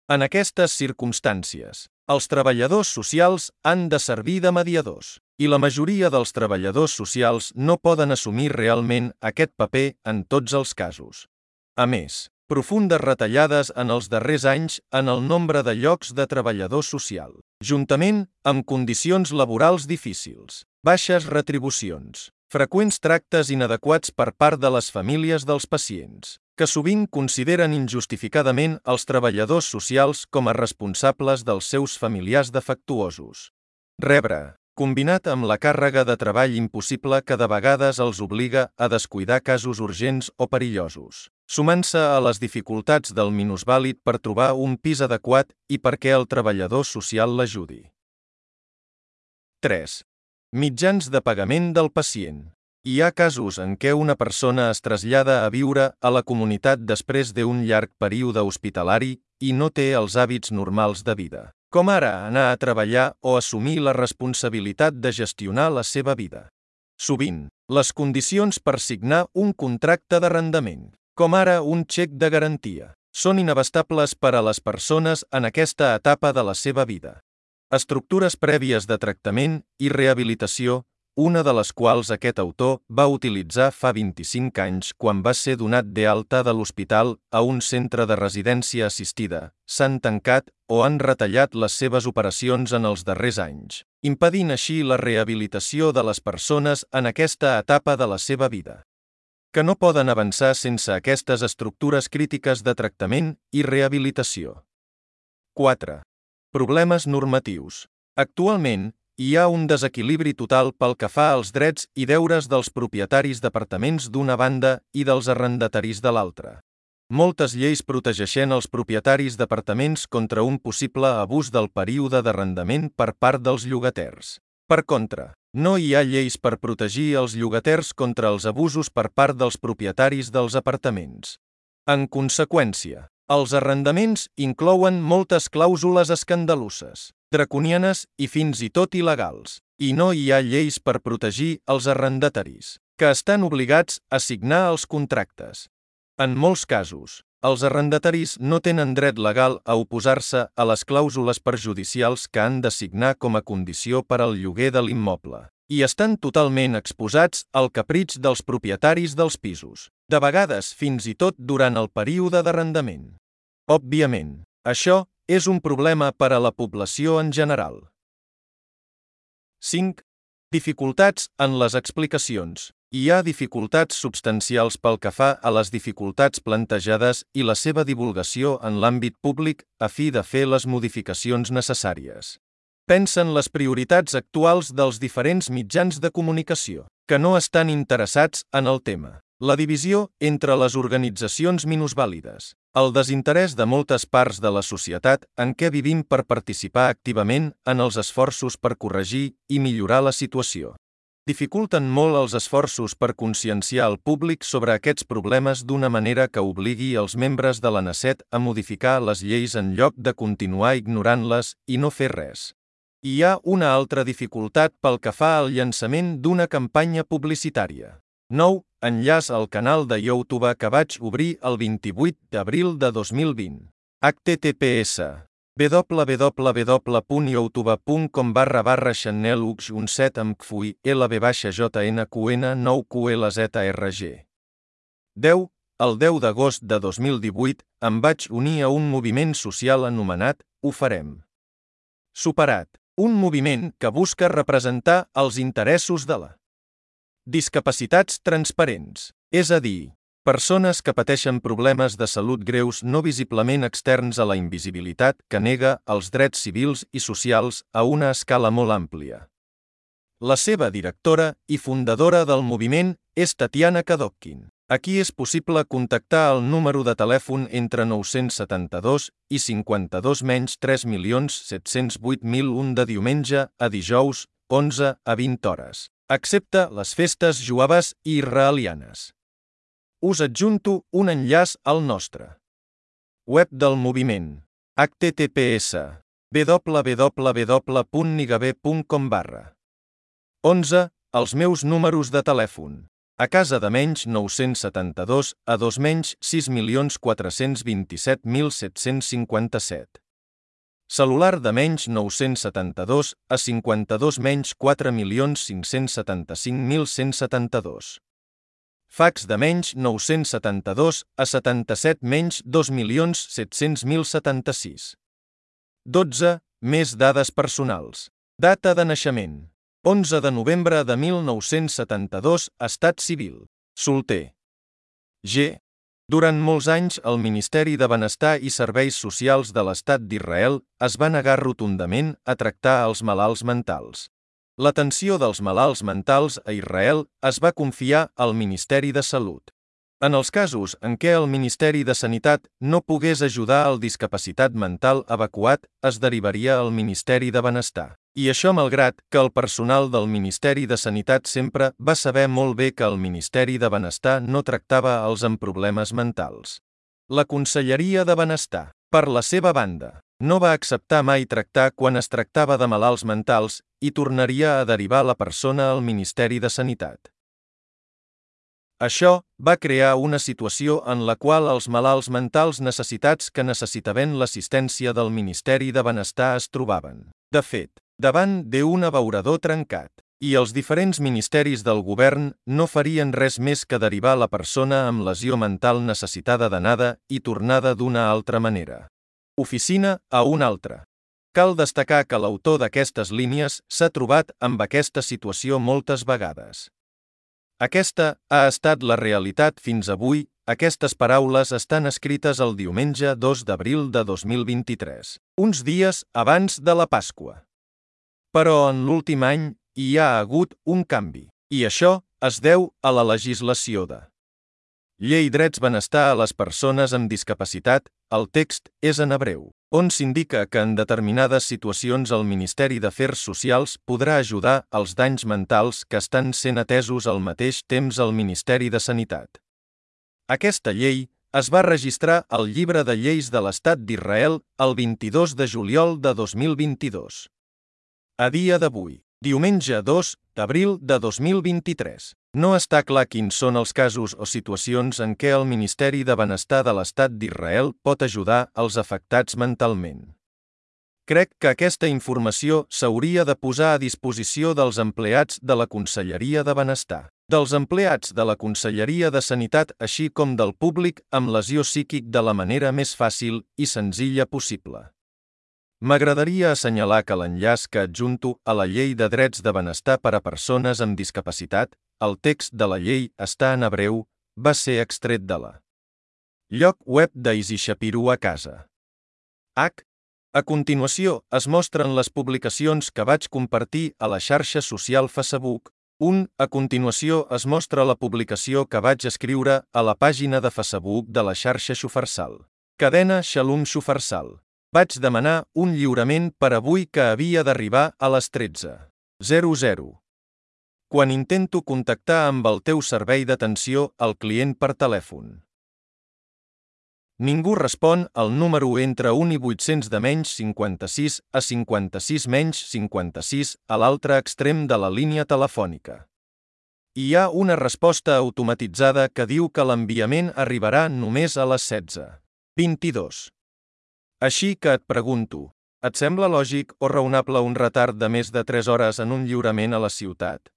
S1: En aquestes circumstàncies, els treballadors socials han de servir de mediadors, i la majoria dels treballadors socials no poden assumir realment aquest paper en tots els casos. A més, profundes retallades en els darrers anys en el nombre de llocs de treballador social, juntament amb condicions laborals difícils, baixes retribucions, freqüents tractes inadequats per part de les famílies dels pacients, que sovint consideren injustificadament els treballadors socials com a responsables dels seus familiars defectuosos. Rebre, combinat amb la càrrega de treball impossible que de vegades els obliga a descuidar casos urgents o perillosos, sumant-se a les dificultats del minusvàlid per trobar un pis adequat i perquè el treballador social l'ajudi. 3. Mitjans de pagament del pacient. Hi ha casos en què una persona es trasllada a viure a la comunitat després d'un llarg període hospitalari i no té els hàbits normals de vida, com ara anar a treballar o assumir la responsabilitat de gestionar la seva vida. Sovint, les condicions per signar un contracte d'arrendament, com ara un xec de garantia, són inabastables per a les persones en aquesta etapa de la seva vida. Estructures prèvies de tractament i rehabilitació, una de les quals aquest autor va utilitzar fa 25 anys quan va ser donat d'alta de l'hospital a un centre de residència assistida, s'han tancat o han retallat les seves operacions en els darrers anys, impedint així la rehabilitació de les persones en aquesta etapa de la seva vida, que no poden avançar sense aquestes estructures crítiques de tractament i rehabilitació. 4. Problemes normatius. Actualment, hi ha un desequilibri total pel que fa als drets i deures dels propietaris d'apartaments d'una banda i dels arrendataris de l'altra. Moltes lleis protegeixen els propietaris d'apartaments contra un possible abús del període d'arrendament per part dels llogaters. Per contra, no hi ha lleis per protegir els llogaters contra els abusos per part dels propietaris dels apartaments. En conseqüència, els arrendaments inclouen moltes clàusules escandaloses, draconianes i fins i tot il·legals, i no hi ha lleis per protegir els arrendataris, que estan obligats a signar els contractes. En molts casos, els arrendataris no tenen dret legal a oposar-se a les clàusules perjudicials que han de signar com a condició per al lloguer de l'immoble, i estan totalment exposats al capritx dels propietaris dels pisos, de vegades fins i tot durant el període d'arrendament. Òbviament, això és un problema per a la població en general. 5. Dificultats en les explicacions. Hi ha dificultats substancials pel que fa a les dificultats plantejades i la seva divulgació en l'àmbit públic a fi de fer les modificacions necessàries. Pensa en les prioritats actuals dels diferents mitjans de comunicació, que no estan interessats en el tema. La divisió entre les organitzacions minusvàlides, el desinterès de moltes parts de la societat en què vivim per participar activament en els esforços per corregir i millorar la situació. Dificulten molt els esforços per conscienciar el públic sobre aquests problemes d'una manera que obligui els membres de la NACET a modificar les lleis en lloc de continuar ignorant-les i no fer res. Hi ha una altra dificultat pel que fa al llançament d'una campanya publicitària. Nou enllaç al canal de YouTube que vaig obrir el 28 d'abril de 2020. https www.youtube.com/channel-17 amb kfui lb-jnqn 9qlzrg. 10. El 10 d'agost de 2018 em vaig unir a un moviment social anomenat Ho farem. Superat. Un moviment que busca representar els interessos de la discapacitats transparents, és a dir, persones que pateixen problemes de salut greus no visiblement externs a la invisibilitat que nega els drets civils i socials a una escala molt àmplia. La seva directora i fundadora del moviment és Tatiana Kadokhin. Aquí és possible contactar el número de telèfon entre 972 i 52-3.708.001 de diumenge a dijous, 11 a 20 hores, excepte les festes jueves i israelianes. Us adjunto un enllaç al nostre web del moviment, https www.nigabe.com/. 11. Els meus números de telèfon. A casa de menys 972 a 2 menys 6.427.757. Celular de menys 972 a 52 menys 4.575.172. Fax de menys 972 a 77 menys 2.700.076. 12. Més dades personals. Data de naixement. 11 de novembre de 1972, estat civil. Solter. G. Durant molts anys, el Ministeri de Benestar i Serveis Socials de l'Estat d'Israel es va negar rotundament a tractar els malalts mentals. L'atenció dels malalts mentals a Israel es va confiar al Ministeri de Salut. En els casos en què el Ministeri de Sanitat no pogués ajudar al discapacitat mental evacuat, es derivaria al Ministeri de Benestar. I això malgrat que el personal del Ministeri de Sanitat sempre va saber molt bé que el Ministeri de Benestar no tractava els amb problemes mentals. La Conselleria de Benestar, per la seva banda, no va acceptar mai tractar quan es tractava de malalts mentals i tornaria a derivar la persona al Ministeri de Sanitat. Això va crear una situació en la qual els malalts mentals necessitats que necessitaven l'assistència del Ministeri de Benestar es trobaven, de fet, davant d'un abeurador trencat, i els diferents ministeris del govern no farien res més que derivar la persona amb lesió mental necessitada d'anada i tornada d'una altra manera. Oficina a una altra. Cal destacar que l'autor d'aquestes línies s'ha trobat amb aquesta situació moltes vegades. Aquesta ha estat la realitat fins avui. Aquestes paraules estan escrites el diumenge 2 d'abril de 2023, uns dies abans de la Pasqua. Però en l'últim any hi ha hagut un canvi, i això es deu a la legislació de Llei drets benestar a les persones amb discapacitat, el text és en hebreu, on s'indica que en determinades situacions el Ministeri d'Afers Socials podrà ajudar als danys mentals que estan sent atesos al mateix temps al Ministeri de Sanitat. Aquesta llei es va registrar al Llibre de Lleis de l'Estat d'Israel el 22 de juliol de 2022. A dia d'avui, diumenge 2 d'abril de 2023, no està clar quins són els casos o situacions en què el Ministeri de Benestar de l'Estat d'Israel pot ajudar als afectats mentalment. Crec que aquesta informació s'hauria de posar a disposició dels empleats de la Conselleria de Benestar, dels empleats de la Conselleria de Sanitat així com del públic amb lesió psíquic de la manera més fàcil i senzilla possible. M'agradaria assenyalar que l'enllaç que adjunto a la Llei de Drets de Benestar per a Persones amb Discapacitat, el text de la llei està en hebreu, va ser extret de la lloc web d'Easy Shapiro a casa. A continuació es mostren les publicacions que vaig compartir a la xarxa social Facebook. A continuació es mostra la publicació que vaig escriure a la pàgina de Facebook de la xarxa Shufarsal. Cadena Shalom Shufarsal. Vaig demanar un lliurament per avui que havia d'arribar a les 13:00. Quan intento contactar amb el teu servei d'atenció al client per telèfon. Ningú respon al número entre 1 i 800 de menys 56 a 56 menys 56 a l'altre extrem de la línia telefònica. Hi ha una resposta automatitzada que diu que l'enviament arribarà només a les 16:22. Així que et pregunto, et sembla lògic o raonable un retard de més de 3 hores en un lliurament a la ciutat?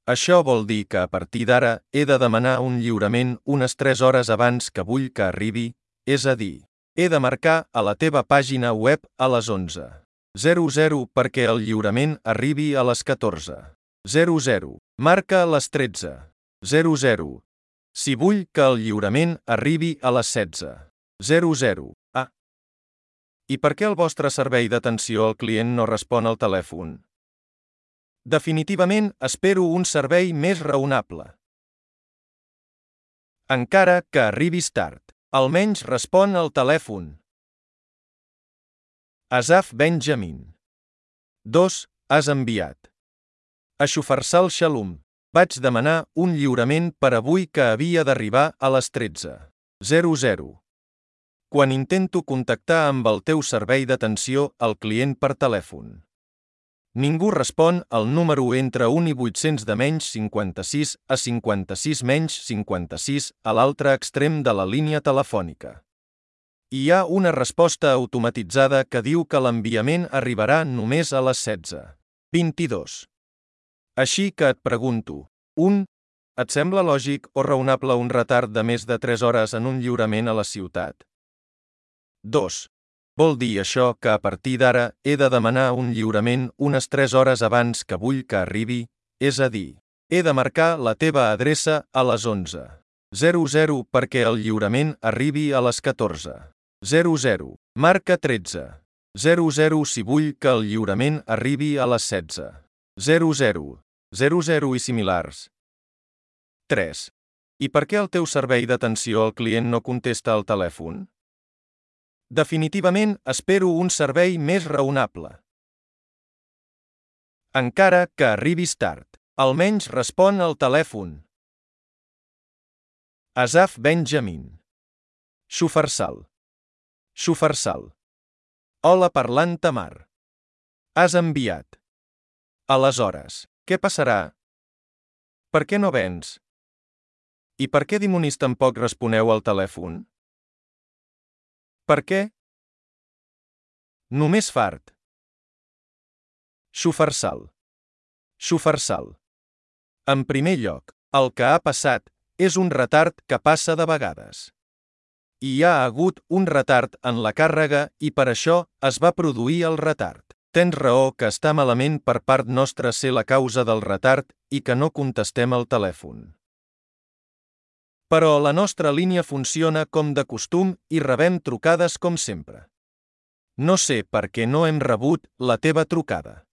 S1: Això vol dir que a partir d'ara he de demanar un lliurament unes 3 hores abans que vull que arribi, és a dir, he de marcar a la teva pàgina web a les 11:00 perquè el lliurament arribi a les 14:00. Marca a les 13:00. Si vull que el lliurament arribi a les 16:00. I per què el vostre servei d'atenció al client no respon al telèfon? Definitivament espero un servei més raonable. Encara que arribis tard, almenys respon al telèfon. Asaf Benjamin. 2. Has enviat. A Shufarsal Shalom. Vaig demanar un lliurament per avui que havia d'arribar a les 13:00. Quan intento contactar amb el teu servei d'atenció al client per telèfon. Ningú respon al número entre 1 i 800 de menys 56 a 56 menys 56 a l'altre extrem de la línia telefònica. Hi ha una resposta automatitzada que diu que l'enviament arribarà només a les 16:22. Així que et pregunto, et sembla lògic o raonable un retard de més de 3 hores en un lliurament a la ciutat? 2. Vol dir això que a partir d'ara he de demanar un lliurament unes 3 hores abans que vull que arribi, és a dir, he de marcar la teva adreça a les 11:00 perquè el lliurament arribi a les 14:00. Marca 13:00 si vull que el lliurament arribi a les 16:00 i similars. 3. I per què el teu servei d'atenció al client no contesta al telèfon? Definitivament espero un servei més raonable. Encara que arribis tard, almenys respon al telèfon. Asaf Benjamin. Shufarsal. Hola parlant Tamar. Has enviat. Aleshores, què passarà? Per què no vens? I per què dimonis tampoc responeu al telèfon? Per què? Només fart. Shufarsal. En primer lloc, el que ha passat és un retard que passa de vegades. Hi ha hagut un retard en la càrrega i per això es va produir el retard. Tens raó que està malament per part nostra ser la causa del retard i que no contestem al telèfon. Però la nostra línia funciona com de costum i rebem trucades com sempre. No sé per què no hem rebut la teva trucada.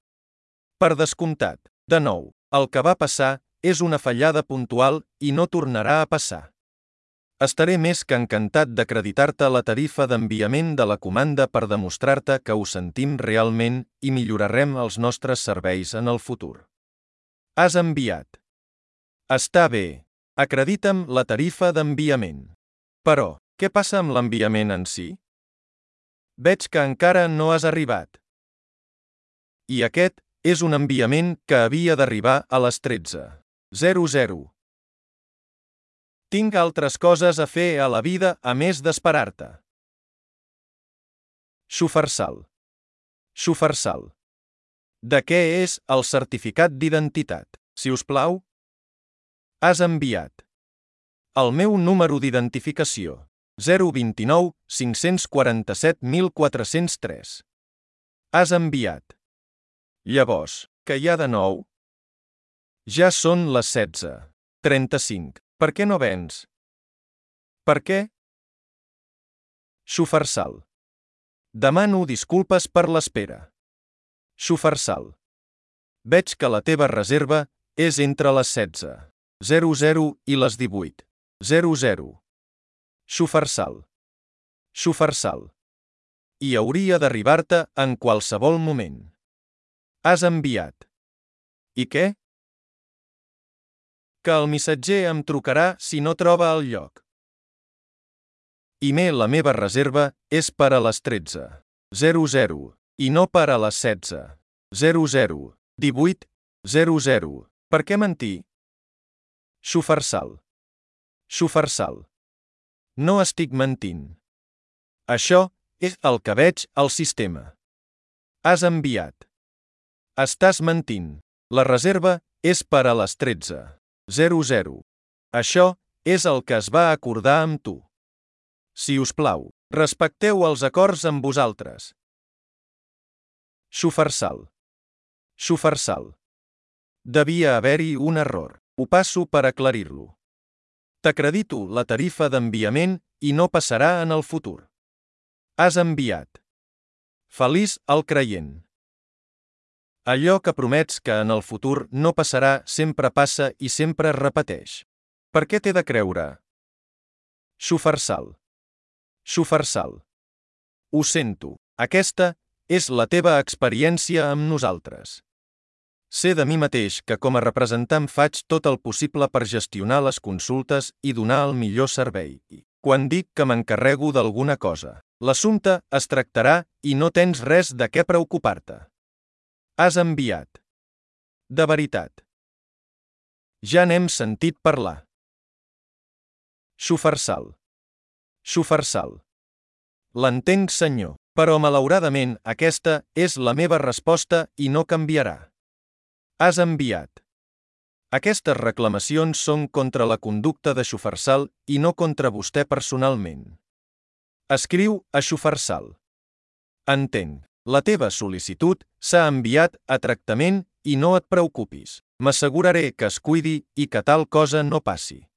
S1: Per descomptat, de nou, el que va passar és una fallada puntual i no tornarà a passar. Estaré més que encantat d'acreditar-te la tarifa d'enviament de la comanda per demostrar-te que ho sentim realment i millorarem els nostres serveis en el futur. Has enviat. Està bé. Acredita'm la tarifa d'enviament. Però, què passa amb l'enviament en si? Veig que encara no has arribat. I aquest és un enviament que havia d'arribar a les 13:00. Tinc altres coses a fer a la vida a més d'esperar-te. Xufarsal. Xufarsal. De què és el certificat d'identitat, si us plau? Has enviat. El meu número d'identificació. 029 547 1403. Has enviat. Llavors, què hi ha de nou? Ja són les 16:35. Per què no vens? Per què? Xufarsal. Demano disculpes per l'espera. Xufarsal. Veig que la teva reserva és entre les 16:00 i les 18:00. Xufarsal. Xufarsal. I hauria d'arribar-te en qualsevol moment. Has enviat. I què? Que el missatger em trucarà si no troba el lloc. La meva reserva és per a les 13:00 i no per a les 16:00. 18:00. Per què mentir? Xufarsal. Xufarsal. No estic mentint. Això és el que veig al sistema. Has enviat. Estàs mentint. La reserva és per a les 13:00. Això és el que es va acordar amb tu. Si us plau, respecteu els acords amb vosaltres. Xufarsal. Xufarsal. Devia haver-hi un error. Ho passo per aclarir-lo. T'acredito la tarifa d'enviament i no passarà en el futur. Has enviat. Feliç el creient. Allò que promets que en el futur no passarà sempre passa i sempre es repeteix. Per què t'he de creure? Xufarsal. Xufarsal. Ho sento, aquesta és la teva experiència amb nosaltres. Sé de mi mateix que com a representant faig tot el possible per gestionar les consultes i donar el millor servei. Quan dic que m'encarrego d'alguna cosa, l'assumpte es tractarà i no tens res de què preocupar-te. Has enviat. De veritat. Ja n'hem sentit parlar. Xufarsal. Xufarsal. L'entenc, senyor, però malauradament aquesta és la meva resposta i no canviarà. Has enviat. Aquestes reclamacions són contra la conducta de Xufarsal i no contra vostè personalment. Escriu a Xufarsal. Entenc. La teva sol·licitud s'ha enviat a tractament i no et preocupis. M'asseguraré que es cuidi i que tal cosa no passi.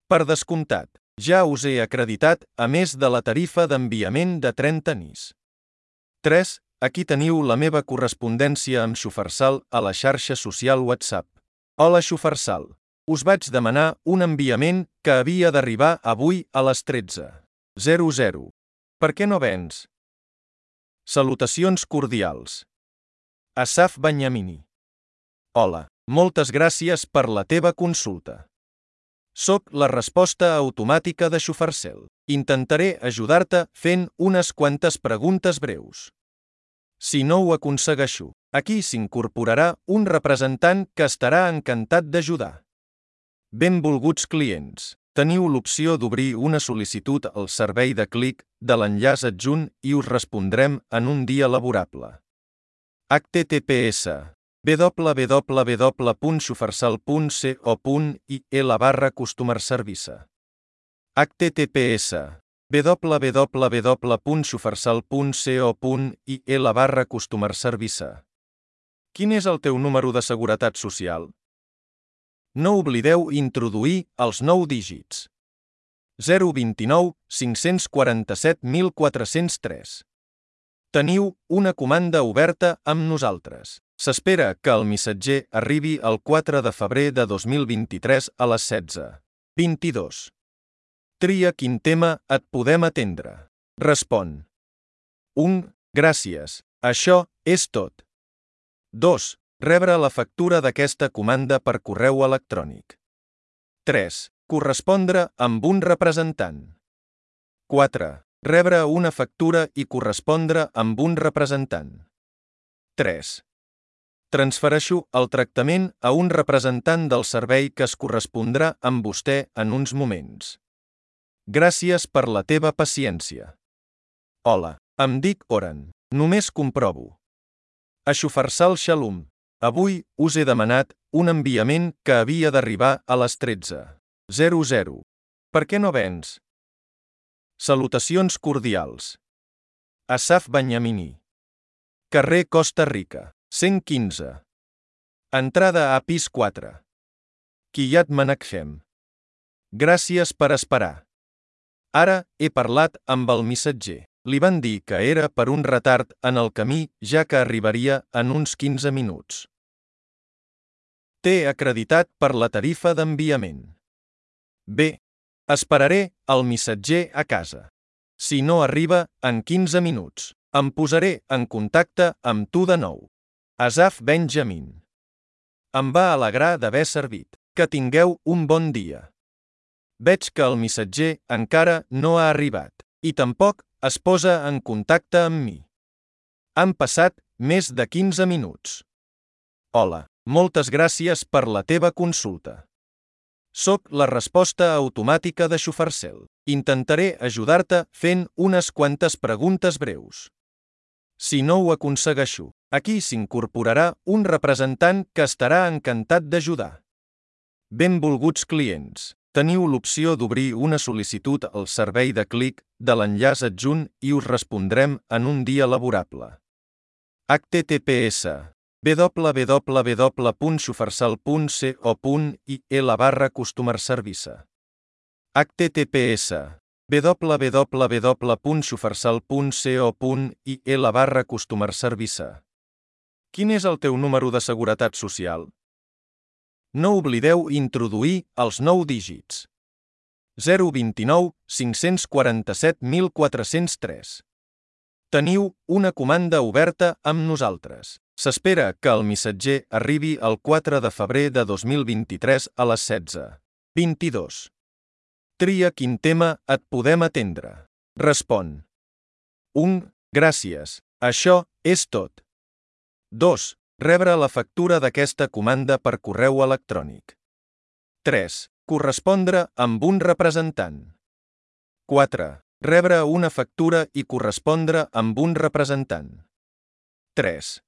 S1: Per descomptat, ja us he acreditat a més de la tarifa d'enviament de 30 nis. 3. Aquí teniu la meva correspondència amb Xufarsal a la xarxa social WhatsApp. Hola Xufarsal. Us vaig demanar un enviament que havia d'arribar avui a les 13:00. Per què no vens? Salutacions cordials. Asaf Banyamini. Hola, moltes gràcies per la teva consulta. Soc la resposta automàtica de Xufarsal. Intentaré ajudar-te fent unes quantes preguntes breus. Si no ho aconsegueixo, aquí s'incorporarà un representant que estarà encantat d'ajudar. Benvolguts clients, teniu l'opció d'obrir una sol·licitud al servei de clic de l'enllaç adjunt i us respondrem en un dia laborable. https www.xufarsal.co.il/customer service. https www.xufarsal.co.il/customer service. Quin és el teu número de seguretat social? No oblideu introduir els 9 dígits. 029 547 1403. Teniu una comanda oberta amb nosaltres. S'espera que el missatger arribi el 4 de febrer de 2023 a les 16:22. Tria quin tema et podem atendre. Respon. 1. Gràcies. Això és tot. 2. Rebre la factura d'aquesta comanda per correu electrònic. 3. Correspondre amb un representant. 4. Rebre una factura i correspondre amb un representant. 3. Transfereixo el tractament a un representant del servei que es correspondrà amb vostè en uns moments. Gràcies per la teva paciència. Hola, em dic Oren. Només comprovo. A Xufarsal Shalom. Avui us he demanat un enviament que havia d'arribar a les 13:00. Per què no vens? Salutacions cordials. Asaf Benyamini. Carrer Costa Rica, 115. Entrada a pis 4. Kiryat Menachem. Gràcies per esperar. Ara he parlat amb el missatger. Li van dir que era per un retard en el camí, ja que arribaria en uns 15 minuts. T'he acreditat per la tarifa d'enviament. Bé, esperaré el missatger a casa. Si no arriba en 15 minuts, em posaré en contacte amb tu de nou. Asaf Benjamin. Em va alegrar d'haver servit. Que tingueu un bon dia. Veig que el missatger encara no ha arribat, i tampoc es posa en contacte amb mi. Han passat més de 15 minuts. Hola, moltes gràcies per la teva consulta. Soc la resposta automàtica de Xufarsel. Intentaré ajudar-te fent unes quantes preguntes breus. Si no ho aconsegueixo, aquí s'incorporarà un representant que estarà encantat d'ajudar. Benvolguts clients. Teniu l'opció d'obrir una sol·licitud al servei de clic de l'enllaç adjunt i us respondrem en un dia laborable. https www.xufarsal.co.il/customer service. https www.xufarsal.co.il/customer service. Quin és el teu número de seguretat social? No oblideu introduir els 9 dígits. 029 547 1403. Teniu una comanda oberta amb nosaltres. S'espera que el missatger arribi el 4 de febrer de 2023 a les 16:22. Tria quin tema et podem atendre. Respon. 1. Gràcies. Això és tot. 2. Rebre la factura d'aquesta comanda per correu electrònic. 3. Correspondre amb un representant. 4. Rebre una factura i correspondre amb un representant. 3.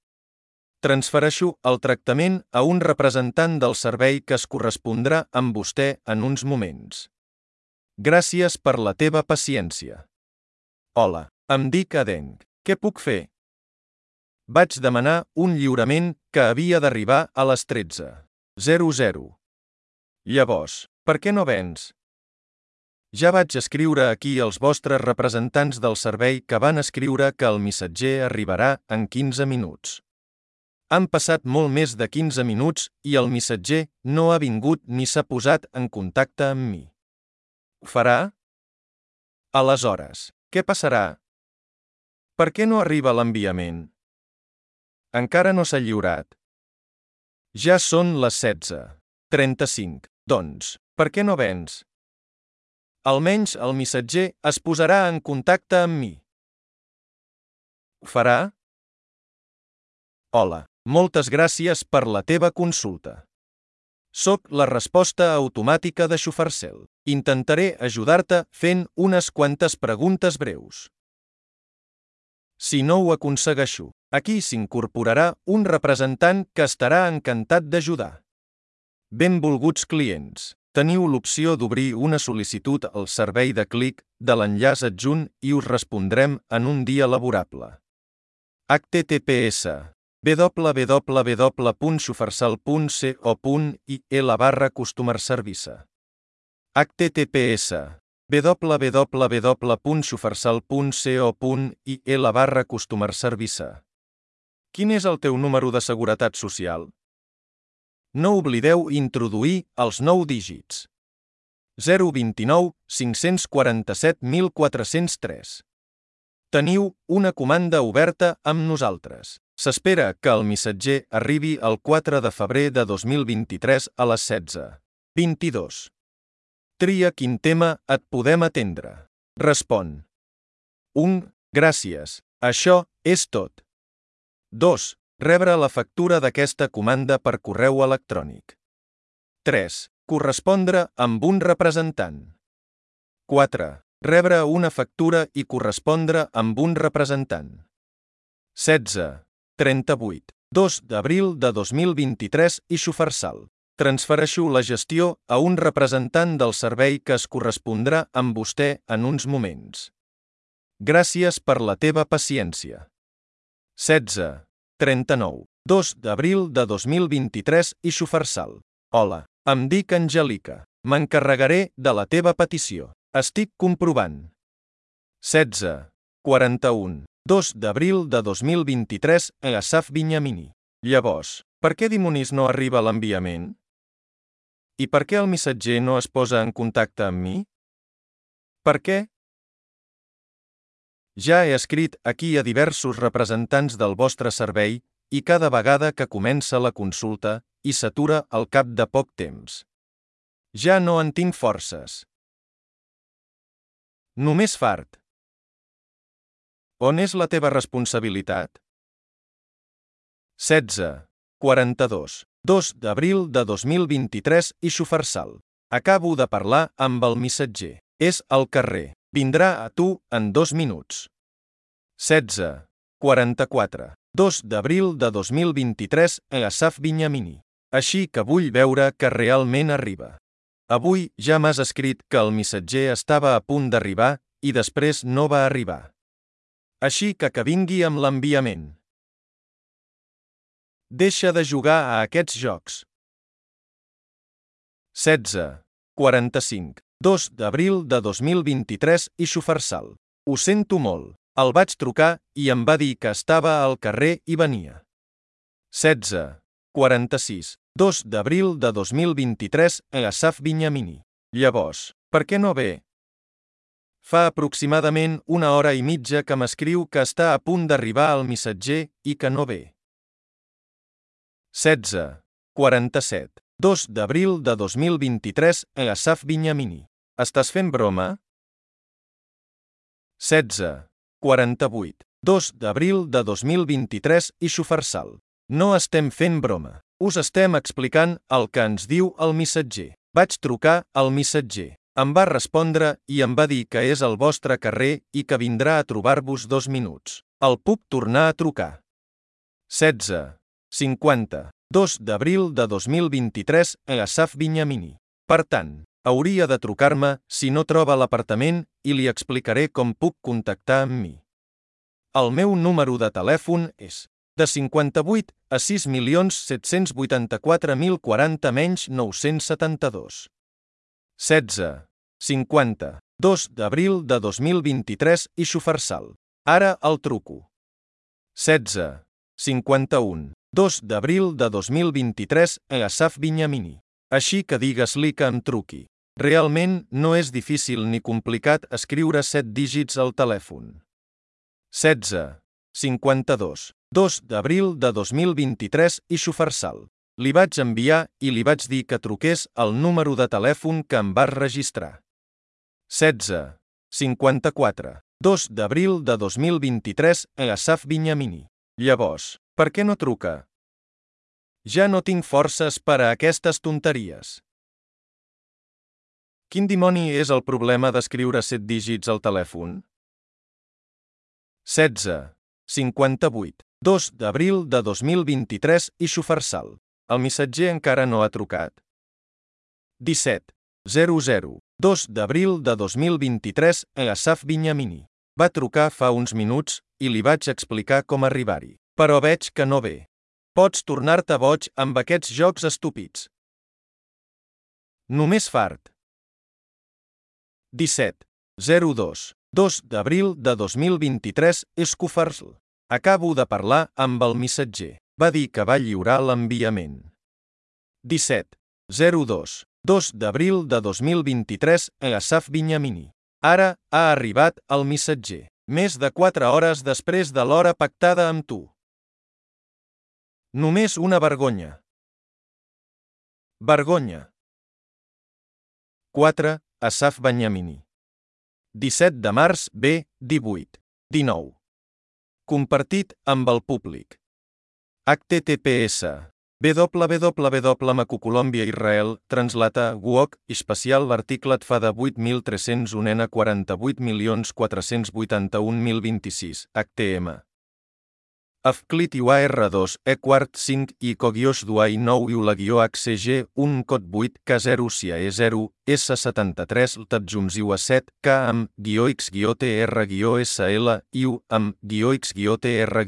S1: Transfereixo el tractament a un representant del servei que es correspondrà amb vostè en uns moments. Gràcies per la teva paciència. Hola, em dic Aden. Què puc fer? Vaig demanar un lliurament que havia d'arribar a les 13:00. Llavors, per què no vens? Ja vaig escriure aquí als vostres representants del servei que van escriure que el missatger arribarà en 15 minuts. Han passat molt més de 15 minuts i el missatger no ha vingut ni s'ha posat en contacte amb mi. Ho farà? Aleshores, què passarà? Per què no arriba l'enviament? Encara no s'ha lliurat. Ja són les 16:35. Doncs, per què no vens? Almenys el missatger es posarà en contacte amb mi. Ho farà? Hola, moltes gràcies per la teva consulta. Soc la resposta automàtica de Xufarsel. Intentaré ajudar-te fent unes quantes preguntes breus. Si no ho aconsegueixo, aquí s'incorporarà un representant que estarà encantat d'ajudar. Benvolguts clients. Teniu l'opció d'obrir una sol·licitud al servei de clic de l'enllaç adjunt i us respondrem en un dia laborable. https www.xufarsal.co.il/customer service. https www.xufarsal.co.il/customer service. Quin és el teu número de seguretat social? No oblideu introduir els 9 dígits. 029 547 1403. Teniu una comanda oberta amb nosaltres. S'espera que el missatger arribi el 4 de febrer de 2023 a les 16:22. Tria quin tema et podem atendre. Respon. 1. Gràcies. Això és tot. 2. Rebre la factura d'aquesta comanda per correu electrònic. 3. Correspondre amb un representant. 4. Rebre una factura i correspondre amb un representant. 16. 38. 2 d'abril de 2023 i Sufarsal. Transfereixo la gestió a un representant del servei que es correspondrà amb vostè en uns moments. Gràcies per la teva paciència. 16. 39. 2 d'abril de 2023 i Sufarsal. Hola, em dic Angèlica. M'encarregaré de la teva petició. Estic comprovant. 16. 41. 2 d'abril de 2023 a Asaf Binyamini. Llavors, per què dimonis no arriba l'enviament? I per què el missatger no es posa en contacte amb mi? Per què? Ja he escrit aquí a diversos representants del vostre servei i cada vegada que comença la consulta i s'atura al cap de poc temps. Ja no en tinc forces. Només fart. On és la teva responsabilitat? 16. 42. 2 d'abril de 2023 i Sufarsal. Acabo de parlar amb el missatger. És al carrer. Vindrà a tu en 2 minuts. 16. 44. 2 d'abril de 2023 a Asaf Binyamini. Així que vull veure que realment arriba. Avui ja m'has escrit que el missatger estava a punt d'arribar i després no va arribar. Així que vingui amb l'enviament. Deixa de jugar a aquests jocs. 16. 45. 2 d'abril de 2023 i Sufarsal. Ho sento molt. El vaig trucar i em va dir que estava al carrer i venia. 16. 46. 2 d'abril de 2023 a Asaf Binyamini. Llavors, per què no ve? Fa aproximadament 1 hora i mitja que m'escriu que està a punt d'arribar el missatger i que no ve. 16. 47. 2 d'abril de 2023 a Asaf Binyamini. Estàs fent broma? 16. 48. 2 d'abril de 2023 i Sufarsal. No estem fent broma. Us estem explicant el que ens diu el missatger. Vaig trucar al missatger. Em va respondre i em va dir que és al vostre carrer i que vindrà a trobar-vos 2 minuts. El puc tornar a trucar. 16. 50. 2 d'abril de 2023 a Asaf Binyamini. Per tant, hauria de trucar-me si no troba l'apartament i li explicaré com puc contactar amb mi. El meu número de telèfon és de 58 a 6.784.040 972. 16. 50. 2 d'abril de 2023 i Sufarsal. Ara el truco. 16. 51. 2 d'abril de 2023 a Asaf Binyamini. Així que digues-li que em truqui. Realment no és difícil ni complicat escriure 7 dígits al telèfon. 16. 52. 2 d'abril de 2023 i Sufarsal. Li vaig enviar i li vaig dir que truqués al número de telèfon que em vas registrar. 16. 54. 2 d'abril de 2023 a Asaf Binyamini. Llavors, per què no truca? Ja no tinc forces per a aquestes tonteries. Quin dimoni és el problema d'escriure 7 dígits al telèfon? 16. 58. 2 d'abril de 2023 i Sufarsal. El missatger encara no ha trucat. 17. 00. 2 d'abril de 2023 a Asaf Binyamini. Va trucar fa uns minuts i li vaig explicar com arribar-hi. Però veig que no ve. Pots tornar-te boig amb aquests jocs estúpids. Només fart. 17. 02. 2 d'abril de 2023 Sufarsal. Acabo de parlar amb el missatger. Va dir que va lliurar l'enviament. 17. 02. 2 d'abril de 2023 a Asaf Binyamini. Ara ha arribat el missatger. Més de 4 hores després de l'hora pactada amb tu. Només una vergonya. Vergonya. 4. Asaf Binyamini. 17 de març B. 18. 19. Compartit amb el públic. https www.Colombia Israel translata Guoc especial l'articlet fa de 8.301 n 48.481.026 htm. Afclit UAR2 E quart 5 I Cogioix Duai 9 ULA-HCG 1 cot 8 K0 SIA E0 S73 LTADJUMSIU A7 K AM-X-TR-SL IU AM-X-TR-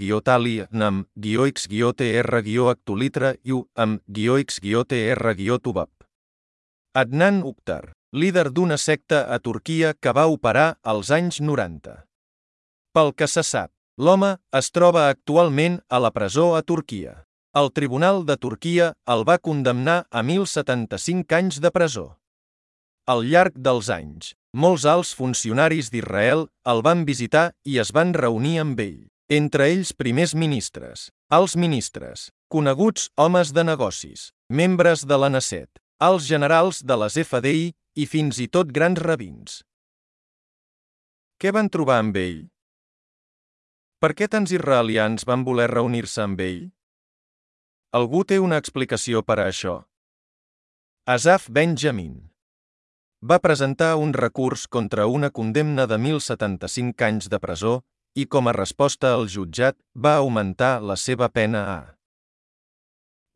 S1: NAM -X-TR- IU AM-X-TR-TUBAP. Adnan Uktar, líder d'una secta a Turquia que va operar als anys 90. Pel que se sap, l'home es troba actualment a la presó a Turquia. El Tribunal de Turquia el va condemnar a 1.075 anys de presó. Al llarg dels anys, molts alts funcionaris d'Israel el van visitar i es van reunir amb ell, entre ells primers ministres, alts ministres, coneguts homes de negocis, membres de la Knesset, alts generals de les FDI i fins i tot grans rabins. Què van trobar amb ell? Per què tants israelians van voler reunir-se amb ell? Algú té una explicació per a això? Asaf Benjamin va presentar un recurs contra una condemna de 1.075 anys de presó i com a resposta el jutjat va augmentar la seva pena a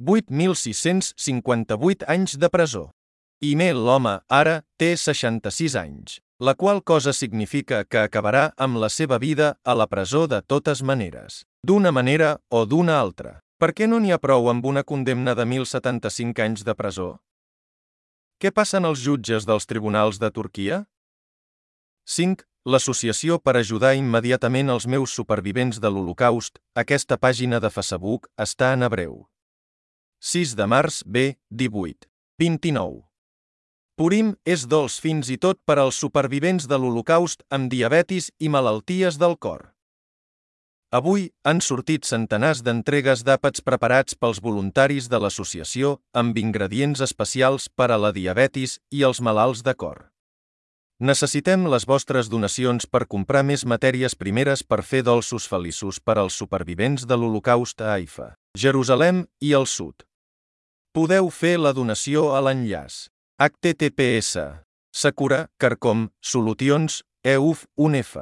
S1: 8.658 anys de presó. I l'home ara té 66 anys, la qual cosa significa que acabarà amb la seva vida a la presó de totes maneres, d'una manera o d'una altra. Per què no n'hi ha prou amb una condemna de 1.075 anys de presó? Què passen als jutges dels tribunals de Turquia? 5. L'Associació per ajudar immediatament els meus supervivents de l'Holocaust, aquesta pàgina de Facebook està en hebreu. 6 de març B. 18. 29. Purim és dolç fins i tot per als supervivents de l'Holocaust amb diabetis i malalties del cor. Avui han sortit centenars d'entregues d'àpats preparats pels voluntaris de l'associació amb ingredients especials per a la diabetis i els malalts de cor. Necessitem les vostres donacions per comprar més matèries primeres per fer dolços feliços per als supervivents de l'Holocaust a Haifa, Jerusalem i el sud. Podeu fer la donació a l'enllaç https Sakura Carcom Solutions EUF UNF.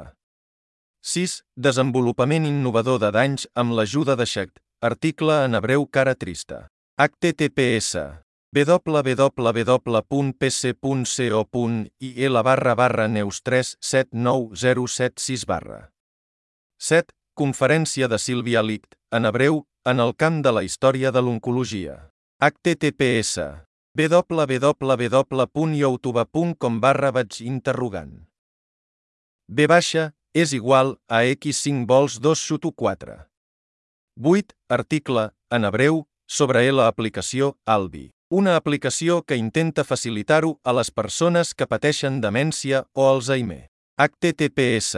S1: 6. Desenvolupament innovador de danys amb l'ajuda de Shecht. Article en hebreu cara trista. https www.pc.co.il/neus379076 7. Conferència de Sílvia Licht, en hebreu, en el camp de la història de l'oncologia. https www.youtube.com/vaig-interrogant. B baixa és igual a x5 vols 2-4. 8. Article, en hebreu, sobre la aplicació Albi. Una aplicació que intenta facilitar-ho a les persones que pateixen demència o Alzheimer. https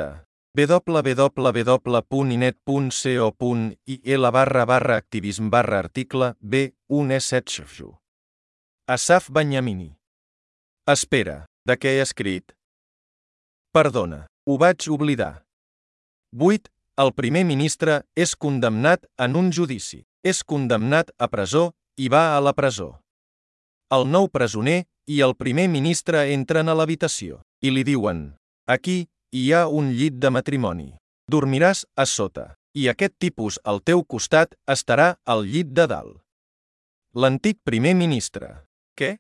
S1: www.inet.co.il/activism/article B1E7. Asaf Binyamini. Espera, de què he escrit? Perdona, ho vaig oblidar. 8. El primer ministre és condemnat en un judici. És condemnat a presó i va a la presó. El nou presoner i el primer ministre entren a l'habitació i li diuen: aquí hi ha un llit de matrimoni. Dormiràs a sota, i aquest tipus al teu costat estarà al llit de dalt. L'antic primer ministre. Què?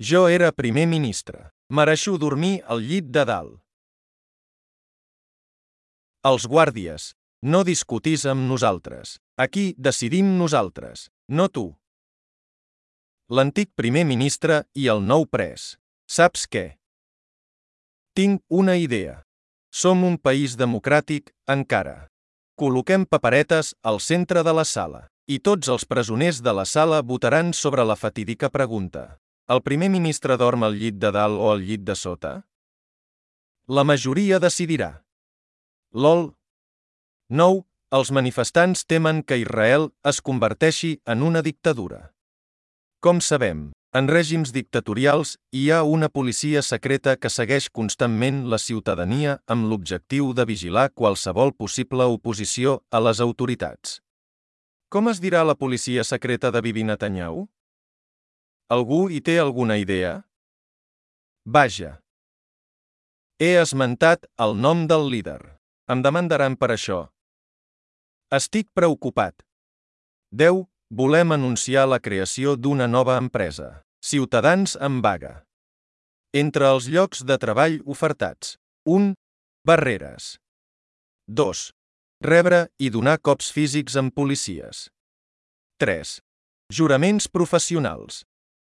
S1: Jo era primer ministre. Mereixo dormir al llit de dalt. Els guàrdies. No discutis amb nosaltres. Aquí decidim nosaltres, no tu. L'antic primer ministre i el nou pres. Saps què? Tinc una idea. Som un país democràtic, encara. Col·loquem paperetes al centre de la sala. I tots els presoners de la sala votaran sobre la fatídica pregunta. El primer ministre dorm al llit de dalt o al llit de sota? La majoria decidirà. LOL. 9. Els manifestants temen que Israel es converteixi en una dictadura. Com sabem, en règims dictatorials hi ha una policia secreta que segueix constantment la ciutadania amb l'objectiu de vigilar qualsevol possible oposició a les autoritats. Com es dirà la policia secreta de Bibi Netanyahu? Algú hi té alguna idea? Vaja. He esmentat el nom del líder. Em demandaran per això. Estic preocupat. 10. Volem anunciar la creació d'una nova empresa. Ciutadans en vaga. Entre els llocs de treball ofertats. 1. Barreres. 2. Rebre i donar cops físics amb policies. 3. Juraments professionals.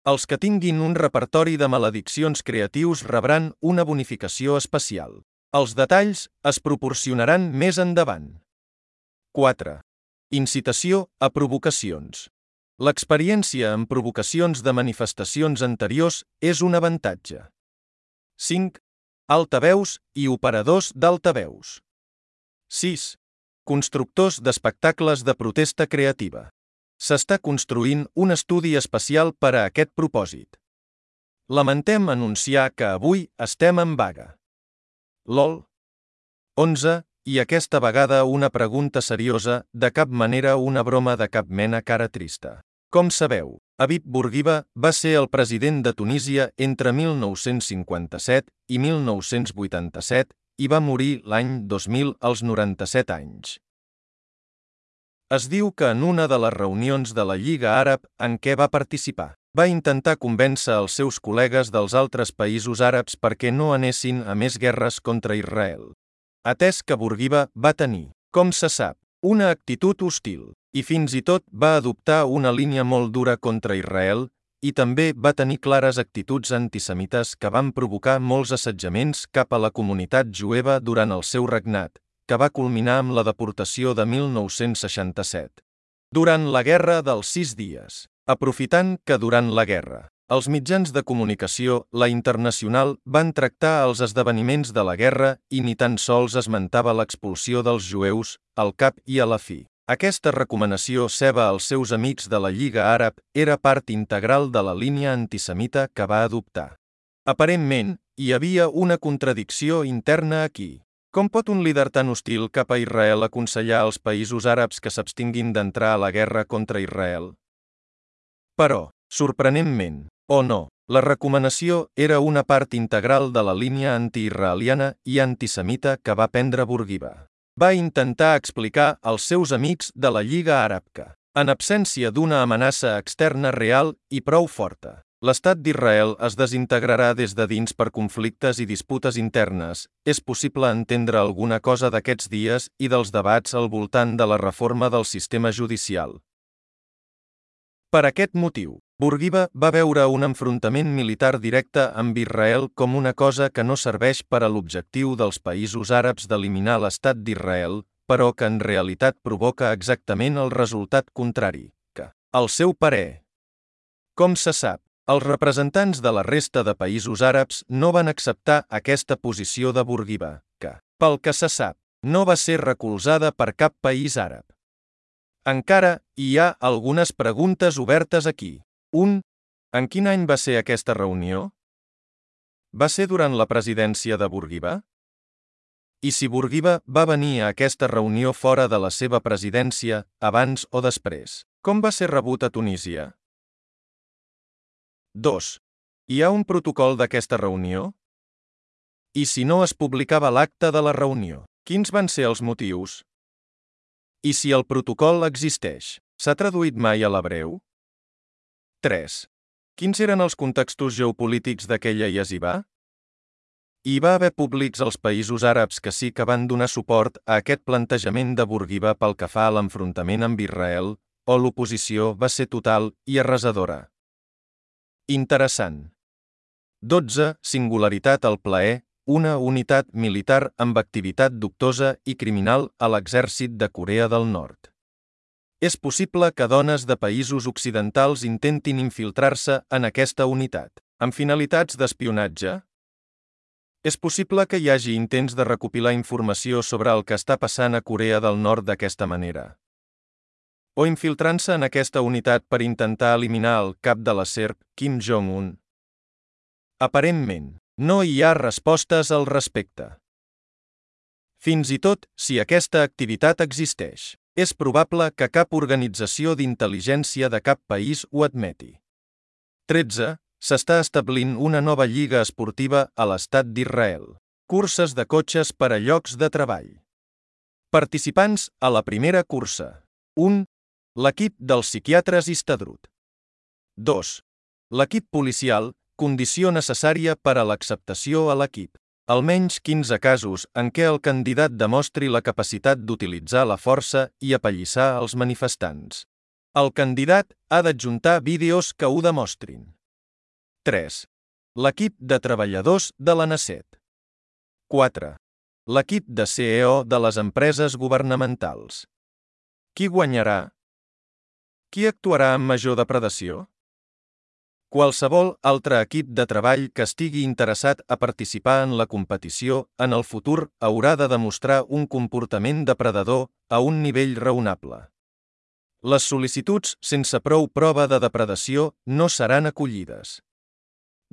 S1: Els que tinguin un repertori de malediccions creatius rebran una bonificació especial. Els detalls es proporcionaran més endavant. 4. Incitació a provocacions. L'experiència en provocacions de manifestacions anteriors és un avantatge. 5. Altaveus i operadors d'altaveus. 6. Constructors d'espectacles de protesta creativa. S'està construint un estudi especial per a aquest propòsit. Lamentem anunciar que avui estem en vaga. LOL. 11. I aquesta vegada una pregunta seriosa, de cap manera una broma de cap mena cara trista. Com sabeu, Habib Bourguiba va ser el president de Tunísia entre 1957 i 1987 i va morir l'any 2000 als 97 anys. Es diu que en una de les reunions de la Lliga Àrab en què va participar, va intentar convèncer els seus col·legues dels altres països àrabs perquè no anessin a més guerres contra Israel. Atès que Bourguiba va tenir, com se sap, una actitud hostil, i fins i tot va adoptar una línia molt dura contra Israel, i també va tenir clares actituds antisemites que van provocar molts assetjaments cap a la comunitat jueva durant el seu regnat, que va culminar amb la deportació de 1967. Durant la Guerra dels 6 dies, aprofitant que durant la guerra, els mitjans de comunicació, la internacional, van tractar els esdeveniments de la guerra i ni tan sols esmentava l'expulsió dels jueus, al cap i a la fi. Aquesta recomanació seva als seus amics de la Lliga Àrab era part integral de la línia antisemita que va adoptar. Aparentment, hi havia una contradicció interna aquí. Com pot un líder tan hostil cap a Israel aconsellar als països àrabs que s'abstinguin d'entrar a la guerra contra Israel? Però, sorprenentment, o no, la recomanació era una part integral de la línia antiisraeliana i antisemita que va prendre Bourguiba. Va intentar explicar als seus amics de la Lliga Àrab que, en absència d'una amenaça externa real i prou forta, l'estat d'Israel es desintegrarà des de dins per conflictes i disputes internes. És possible entendre alguna cosa d'aquests dies i dels debats al voltant de la reforma del sistema judicial. Per aquest motiu, Bourguiba va veure un enfrontament militar directe amb Israel com una cosa que no serveix per a l'objectiu dels països àrabs d'eliminar l'estat d'Israel, però que en realitat provoca exactament el resultat contrari, que, al seu parer. Com se sap, els representants de la resta de països àrabs no van acceptar aquesta posició de Bourguiba, que, pel que se sap, no va ser recolzada per cap país àrab. Encara hi ha algunes preguntes obertes aquí. 1. En quin any va ser aquesta reunió? Va ser durant la presidència de Bourguiba? I si Bourguiba va venir a aquesta reunió fora de la seva presidència, abans o després, com va ser rebut a Tunísia? 2. Hi ha un protocol d'aquesta reunió? I si no es publicava l'acte de la reunió, quins van ser els motius? I si el protocol existeix, s'ha traduït mai a l'hebreu? 3. Quins eren els contextos geopolítics d'aquella yeshiva? Hi va haver públics als països àrabs que sí que van donar suport a aquest plantejament de Bourguiba pel que fa a l'enfrontament amb Israel, o l'oposició va ser total i arrasadora? Interessant. 12. Singularitat al plaer, una unitat militar amb activitat dubtosa i criminal a l'exèrcit de Corea del Nord. És possible que dones de països occidentals intentin infiltrar-se en aquesta unitat, amb finalitats d'espionatge? És possible que hi hagi intents de recopilar informació sobre el que està passant a Corea del Nord d'aquesta manera. O infiltrant-se en aquesta unitat per intentar eliminar el cap de la serp, Kim Jong-un. Aparentment, no hi ha respostes al respecte. Fins i tot, si aquesta activitat existeix, és probable que cap organització d'intel·ligència de cap país ho admeti. 13. S'està establint una nova lliga esportiva a l'estat d'Israel. Curses de cotxes per a llocs de treball. Participants a la primera cursa. 1. L'equip dels psiquiatres Histadrut. 2. L'equip policial, condició necessària per a l'acceptació a l'equip. Almenys 15 casos en què el candidat demostri la capacitat d'utilitzar la força i apallissar els manifestants. El candidat ha d'adjuntar vídeos que ho demostrin. 3. L'equip de treballadors de la NACET. 4. L'equip de CEO de les empreses governamentals. Qui guanyarà? Qui actuarà amb major depredació? Qualsevol altre equip de treball que estigui interessat a participar en la competició en el futur haurà de demostrar un comportament depredador a un nivell raonable. Les sol·licituds sense prou prova de depredació no seran acollides.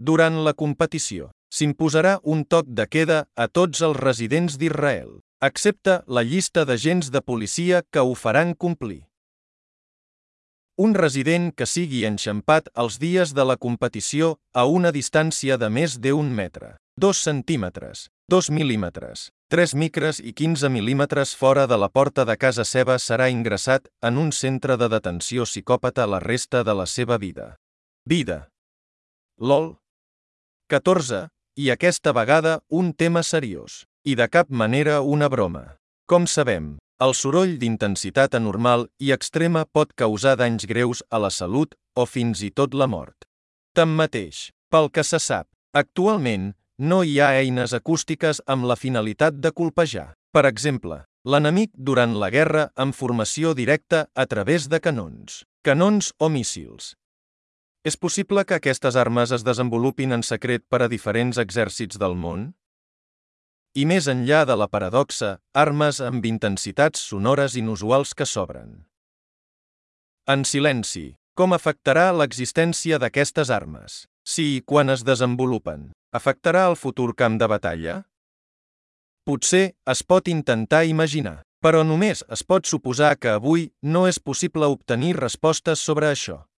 S1: Durant la competició, s'imposarà un toc de queda a tots els residents d'Israel, excepte la llista d'agents de policia que ho faran complir. Un resident que sigui enxampat els dies de la competició a una distància de més d'1 metre, 2 centímetres, 2 mil·límetres, 3 micres i 15 mil·límetres fora de la porta de casa seva serà ingressat en un centre de detenció psicòpata la resta de la seva vida. LOL. 14. I aquesta vegada un tema seriós, i de cap manera una broma. Com sabem, el soroll d'intensitat anormal i extrema pot causar danys greus a la salut o fins i tot la mort. Tanmateix, pel que se sap, actualment no hi ha eines acústiques amb la finalitat de colpejar, per exemple, l'enemic durant la guerra amb formació directa a través de canons o míssils. És possible que aquestes armes es desenvolupin en secret per a diferents exèrcits del món? I més enllà de la paradoxa, armes amb intensitats sonores inusuals que s'obren. En silenci, com afectarà l'existència d'aquestes armes? Si i quan es desenvolupen, afectarà el futur camp de batalla? Potser es pot intentar imaginar, però només es pot suposar que avui no és possible obtenir respostes sobre això.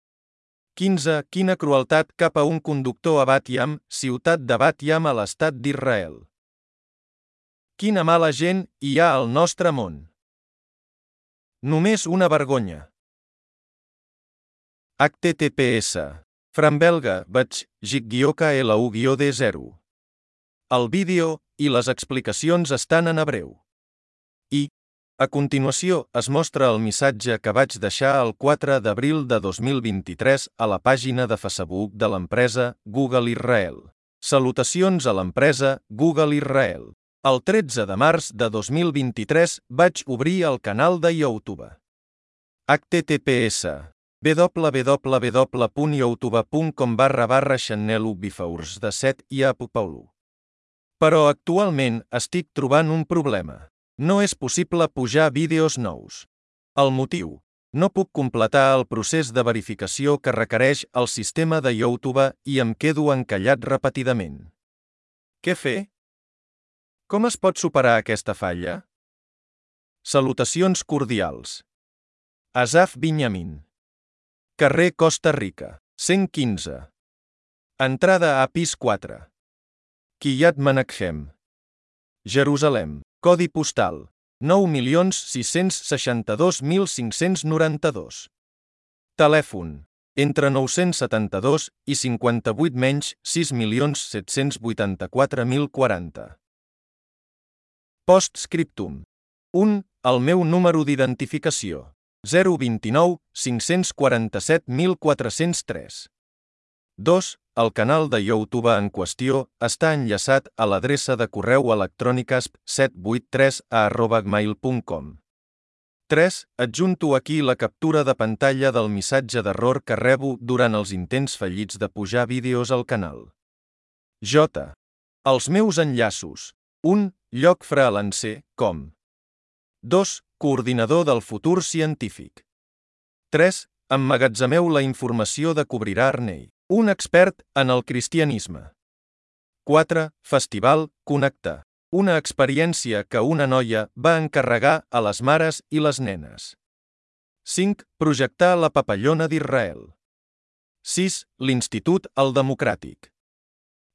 S1: 15. Quina crueltat cap a un conductor a Bat Yam, ciutat de Bat Yam a l'estat d'Israel. Quina mala gent hi ha al nostre món. Només una vergonya. https Frambelga Batch -LU-D0. El vídeo i les explicacions estan en hebreu. A continuació es mostra el missatge que vaig deixar el 4 d'abril de 2023 a la pàgina de Facebook de l'empresa Google Israel. Salutacions a l'empresa Google Israel. El 13 de març de 2023 vaig obrir el canal de YouTube. https www.youtube.com/channel/bifeurs de 7 i apupaulo. Però actualment estic trobant un problema. No és possible pujar vídeos nous. El motiu: no puc completar el procés de verificació que requereix el sistema de YouTube i em quedo encallat repetidament. Què fer? Com es pot superar aquesta falla? Salutacions cordials. Asaf Binyamin. Carrer Costa Rica, 115. Entrada a pis 4. Kiryat Menachem. Jerusalem. Codi postal 9.662.592. Telèfon entre 972 i 58 menys 6.784.040. Postscriptum. 1. El meu número d'identificació 029 547.403. 2. El canal de YouTube en qüestió està enllaçat a l'adreça de correu electrònic asp783@gmail.com. 3. Adjunto aquí la captura de pantalla del missatge d'error que rebo durant els intents fallits de pujar vídeos al canal. J. Els meus enllaços. 1. Lloc freelancer.com 2. Coordinador del futur científic. 3. Emmagatzemeu la informació de Cobrirà Arnei, un expert en el cristianisme. 4. Festival Connecta, una experiència que una noia va encarregar a les mares i les nenes. 5. Projectar la papallona d'Israel. 6. L'Institut El Democràtic.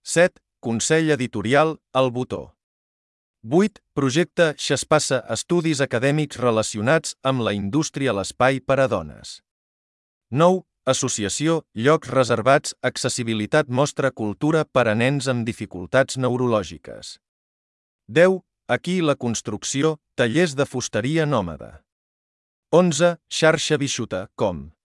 S1: 7. Consell editorial El Botó. 8. Projecte Xespassa, estudis acadèmics relacionats amb la indústria a l'espai per a dones. 9. Associació Llocs reservats, accessibilitat, mostra cultura per a nens amb dificultats neurològiques. 10. Aquí la construcció, tallers de fusteria nòmada. 11. Xarxa Bixuta.com